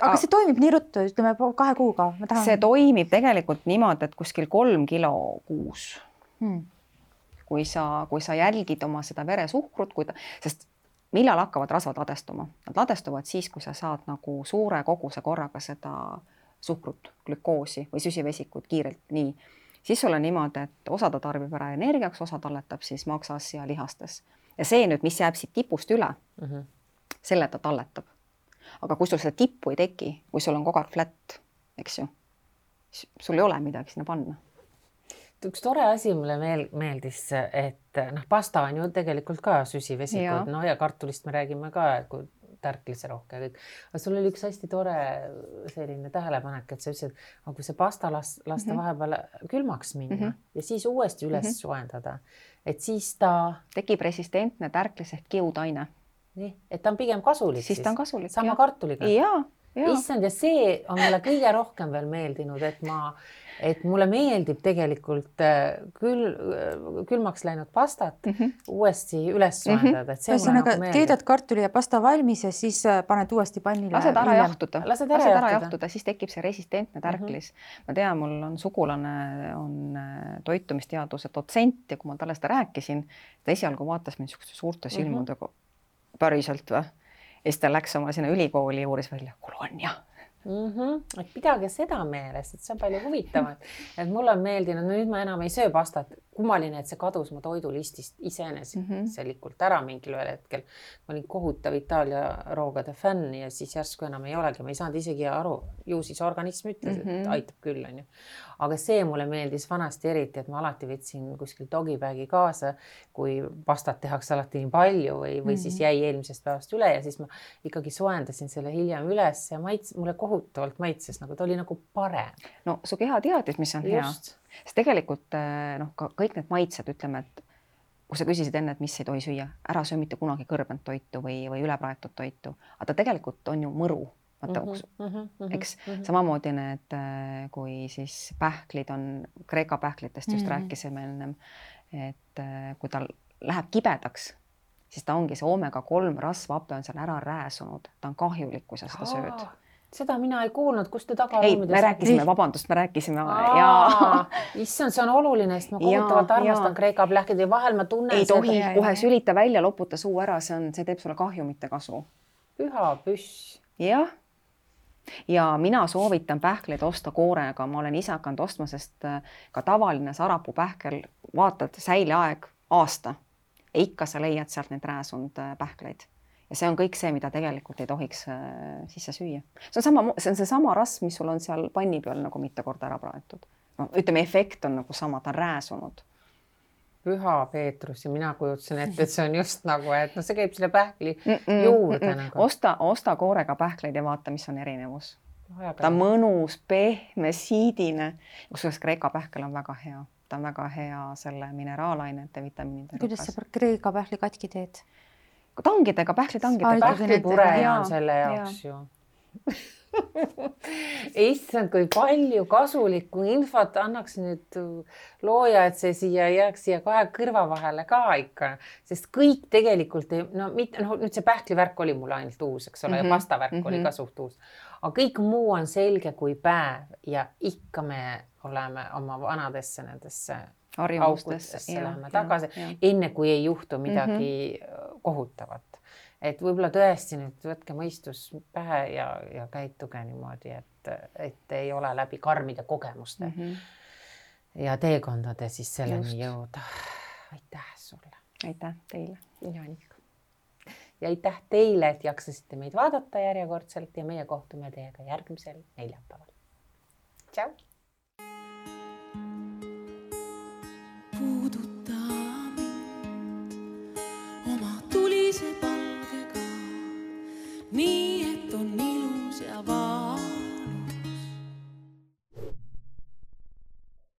Aga see toimib nii ruttu, ütleme 2 kuuga. See toimib tegelikult niimoodi, et kuskil 3 kilo kuus. Kui sa jälgid oma seda veresuhkrut, sest millal hakkavad rasvad ladestuma? Nad ladestuvad siis, kui sa saad nagu suure koguse korraga seda suhkrut, glükoosi või süsivesikut kiirelt nii. Siis sul on niimoodi, et osa ta tarbib ära energiaks, osa talletab siis maksas ja lihastes. Ja see nüüd, mis jääb siit tipust üle, selle ta talletab. Aga kui sul seda tippu ei teki, kui sul on kogu aeg flat, eks ju, sul ei ole midagi sinna panna. Üks tore asi mulle meeldis, et pasta on ju tegelikult ka süsivesikud, ja kartulist me räägime ka, kui tärklise rohke kõik. Aga sul oli üks hästi tore selline tähelepanek, et sa ütlesid, et kui see pasta lasta vahepeal külmaks minna ja siis uuesti üles soojendada, et siis ta tekib resistentne tärklis ehk kiudaine. Nii, et ta on pigem kasulik. Siis ta on kasulik. Sama kartuliga. Ja. Issand, ja see on mulle kõige rohkem veel meeldinud, et mulle meeldib tegelikult külmaks läinud pastat uuesti üles soojendada. Ühesõnaga, keedad kartuli ja pasta valmis ja siis paned uuesti pannile. Lased ära jahtuda, siis tekib see resistentne tärklis. Ma tean, mul on sugulane, on toitumisteaduse dotsent ja kui ma talle seda rääkisin, ta esialgu vaatas mind suurte silmudega päriselt või? Ja siis ta läks oma sinna ülikooli juures välja, kolonia. Et pidage seda meeles, et see on palju huvitavat. Et mulle on meeldinud, nüüd ma enam ei söö pastat. Kummaline, et see kadus mu toidulistist iseeneselikult ära mingil ühel hetkel. Ma olin kohutav Itaalia roogade fänn ja siis järsku enam ei olegi. Ma ei saanud isegi aru, ju siis organism ütles, et aitab küll. On ju. Aga see mulle meeldis vanasti eriti, et ma alati võtsin kuskil dogibagi kaasa, kui pastat tehakse alati nii palju või siis jäi eelmisest päevast üle ja siis ma ikkagi soendasin selle hiljem üles ja mulle kohutavalt maitses, nagu ta oli nagu parem. No su keha teadis, mis on hea. Sest tegelikult kõik need maitsed, ütleme, et kui sa küsisid enne, et mis ei tohi süüa, ära söö mitte kunagi kõrbent toitu või ülepraetud toitu, aga ta tegelikult on ju mõru. Eks samamoodi need, kui siis pähklid on, Kreeka pähklitest just rääkisime ennem, et kui ta läheb kibedaks, siis ta ongi see omega-3 rasvhape on seal ära rääsunud, ta on kahjulik, kui sa seda sööd. Seda mina ei kuulnud, kus te taga ei, me rääkisime, vabandust, me rääkisime. Issand, see on oluline, sest ma kohutavalt armastan Kreeka pähklid ja vahel ma tunnen ei tohi kohe sülita välja, loputa suu ära, see teeb sulle kahju, mitte kasu. Püha püss. Jah. Ja mina soovitan pähkleid osta koorega, ma olen ise hakanud ostma, sest ka tavaline sarapuu pähkel, vaatad säileaeg aasta ja ikka sa leiad sealt neid rääsunud pähkleid. Ja see on kõik see, mida tegelikult ei tohiks sisse süüa. See on seesama rasv, mis sul on seal panni peal nagu mitu korda ära praetud. No, ütleme, efekt on nagu sama, ta on rääsunud. Püha Peetrus ja mina kujutsen ette, et see on just nagu, et no see käib selle pähkli juurde. Nagu. Osta koorega pähkleid ja vaata, mis on erinevus. Ta on mõnus, pehme, siidine. Kusjuures Kreeka pähkel on väga hea. Ta on väga hea selle mineraalainete, vitamiinide. Kuidas sa Kreeka pähli katki teed? Tangidega, pähklitangidega. Pähklipure on selle jaoks ju. Issand, kui palju kasulikku infot annaks nüüd looja, et see jääks siia kahe kõrva vahele ka ikka. Sest kõik tegelikult, nüüd see pähklivärk oli mul ainult uus, eks ole, ja pastavärk oli ka suht uus. Aga kõik muu on selge kui päev ja ikka me oleme oma vanadesse nendesse aukudesse läheme tagasi, enne kui ei juhtu midagi kohutavat. Et võib-olla tõesti nüüd võtke mõistus pähe ja käituge niimoodi, et ei ole läbi karmide kogemuste ja teekondade siis selleni jõuda. Aitäh sulle. Aitäh teile. Ja aitäh teile, et jaksasite meid vaadata järjekordselt ja meie kohtume teiega järgmisel neljapäeval. Tšau!